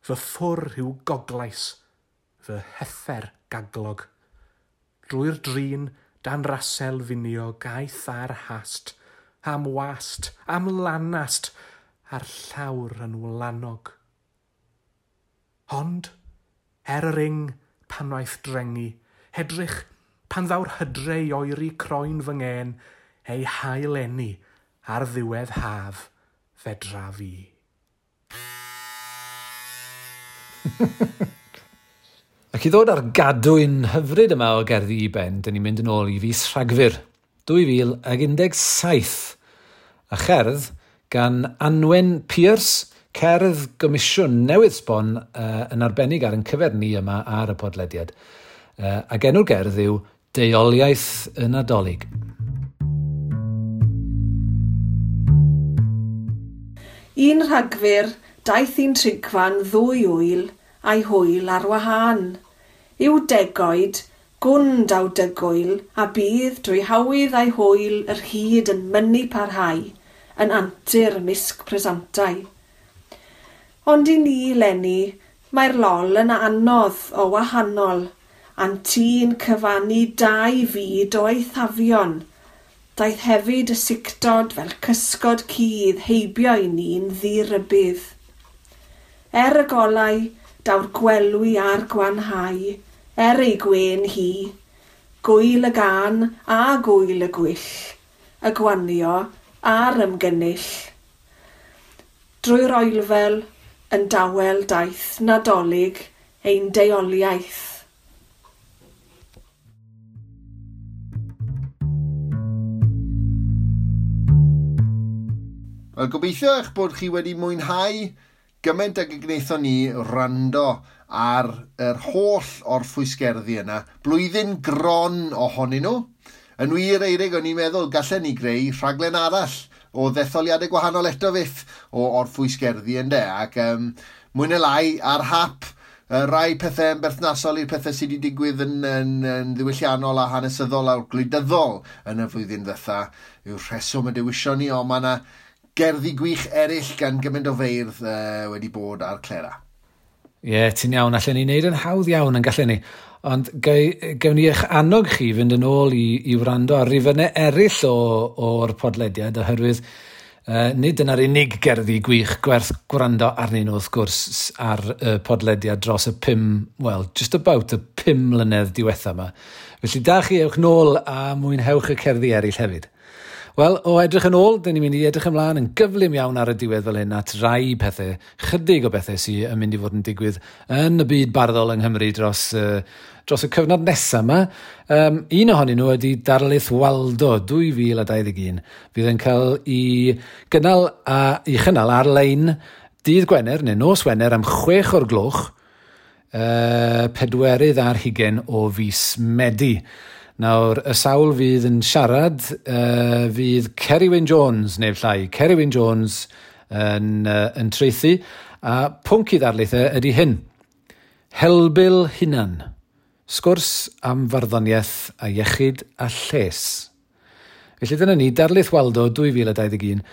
fy ffwr yw goglais, fy heffer gaglog. Drwy'r drin, dan rasel finio gaeth ar hast, am wast, am lanast, a'r llawr yn wlanog. Ond, er yr ing, pan waeth drengu, hedrych, pan ddaw'r hydre i oeri croen fy ngên, ei hail eni ar ddiwedd haf, fedra fi. Ac i ddod ar gadwyn hyfryd yma o gerddi i ben, dyn ni'n mynd yn ôl i fis Rhagfyr 2017 a cherdd gan Anwen Pierce, cerdd gomisiwn newydd sbon yn arbennig ar ein cyfer ni yma ar y podlediad. Ac enw'r gerdd yw Deuoliaeth y Nadolig. Un Rhagfyr, daeth un trigfan ddwy wyl a'i hwyl ar wahân. Yw degoed, gwn daw dygwyl, a bydd drwy hawydd a'i hwyl yr hyd yn mynnu parhau, yn antur misg presantau. Ond i ni, leni, mae'r lol yn anodd o wahanol, a'n tî'n cyfannu dau fyd o eithafion. Daeth hefyd y sictod fel cysgod cudd heibio i ni'n ddirybudd. Er y golau, daw'r gwelwi a'r gwanhau, er ei gwên hi, gwyl y gân a gwyl y gwyll, y gwanio a'r ymgynnull. Drwy'r oelfel, yn dawel daeth Nadolig ein deuoliaeth. Wel, gobeithio eich bod chi wedi mwynhau gymaint ag y gwnaethon ni wrando ar yr holl orffwysgerddi yna. Blwyddyn gron ohonyn nhw. Yn wir, Eirig, o'n i'n meddwl gallen ni greu rhaglen arall o ddetholiadau gwahanol eto fyth o orffwysgerddi ynde. Ac mwy neu lai ar hap, rai pethau yn berthnasol i'r pethau sydd wedi digwydd yn ddiwylliannol a hanesyddol a gwleidyddol yn y flwyddyn ddetha yw'r rheswm y dewision ni, ond mae yna gerddi gwych eraill gan gymaint o feirdd wedi bod ar Clera. Ie, yeah, ti'n iawn. Allen ni wneud yn hawdd iawn yn gallen ni. Ond gewn ni eich annog chi fynd yn ôl i wrando ar rifynnau eraill o'r podlediad, oherwydd nid dyna'r unig gerddi gwych gwerth gwrando arnyn nhw, wrth gwrs, ar y podlediad dros y just about y 5 mlynedd diwetha yma. Felly da chi, ewch nôl a mwynhewch y cerddi eraill hefyd. Wel, o edrych yn ôl, dyn ni'n mynd i edrych ymlaen yn gyflym iawn ar y diwedd fel hyn at rai pethau, chydig o bethau sydd yn mynd i fod yn digwydd yn y byd barddol yng Nghymru dros y cyfnod nesaf yma. Un ohonyn nhw ydy Darlith Waldo 2021. Fydd yn cael ei gynnal ei chynnal ar-lein dydd Gwener neu nos Wener am 6:00, 24 o fis Medi. Nawr, y sawl fydd yn siarad fydd Ceri Wyn Jones, neu llai, Ceri Wyn Jones yn traethu, a pwnc i ddarlith ydy hyn. Helbul hunan, sgwrs am farddoniaeth a iechyd a lles. Felly dyna ni, Darlith Waldo 2021.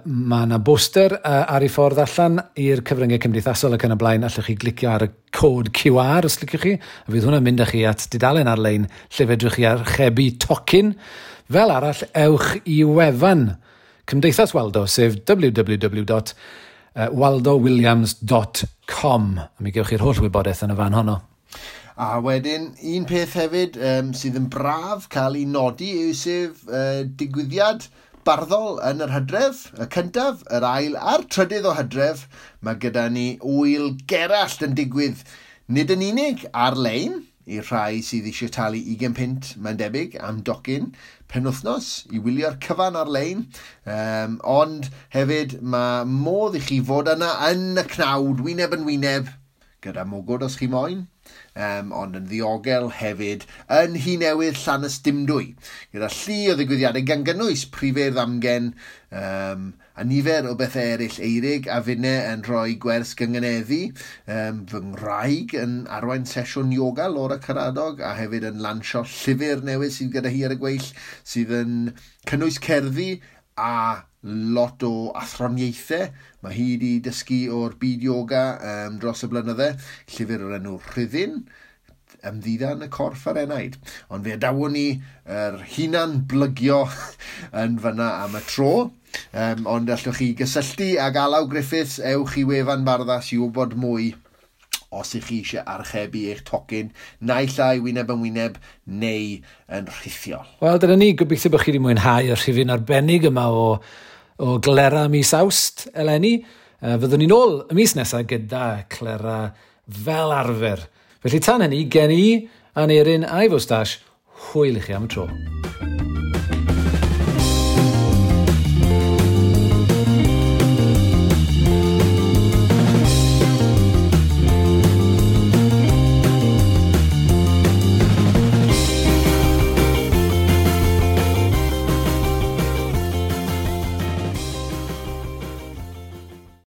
Mae yna boster ar ei ffordd allan i'r cyfryngau cymdeithasol ac yn y blaen. Allwch chi glicio ar y cod QR os liciwch chi, a fydd hwnna'n mynd â chi at dudalen ar-lein lle fedrwch chi archebu tocyn. Fel arall, ewch i wefan Cymdeithas Waldo, sef www.waldowilliams.com. A mi gewch chi'r holl wybodaeth yn y fan honno. A wedyn, un peth hefyd sydd yn braf cael ei nodi yw sef digwyddiad barddol yn yr Hydref, y cyntaf, yr ail a'r trydydd o Hydref. Mae gyda ni Ŵyl Gerallt yn digwydd nid yn unig ar-lein i'r rhai sydd eisiau talu 20 punt, mae'n debyg, am docyn penwythnos i wylio'r cyfan ar-lein. Ond hefyd mae modd i chi fod yna yn y cnawd, wyneb yn wyneb, gyda mwgwd os chi moyn. Ond yn ddiogel hefyd yn Nhŷ Newydd Llanystumdwy, gyda llu o ddigwyddiadau gan gynnwys prifeirdd amgen a nifer o bethau eraill. Eirig a finne yn rhoi gwers gyngeneddu, fy ngwraig yn arwain sesiwn yoga, Laura Caradog, a hefyd yn lansio llyfr newydd sydd gyda hi ar y gweill, sydd yn cynnwys cerddi a lot o athroniaethau. Mae hi wedi dysgu o'r byd yoga dros y blynydde, llyfr o'r enw Rhyddin, ymddiddan y corff a'r enaid. Ond fe adawon ni yr hunan blygio yn fyna am y tro. Ond allwch chi gysylltu ag Alaw Griffiths, ewch i wefan Barddas i wybod mwy os ych chi eisiau archebu eich tocyn, naill ai wyneb yn wyneb neu yn rhithiol. Wel, dyna ni, gobeithio bod chi wedi mwynhau y rhifyn arbennig yma o Glera mis Awst eleni. Fyddwn ni'n ôl y mis nesaf gyda Clera fel arfer. Felly tan hynny, gen i, Aneirin a'i fwstash, hwyl i chi am y tro.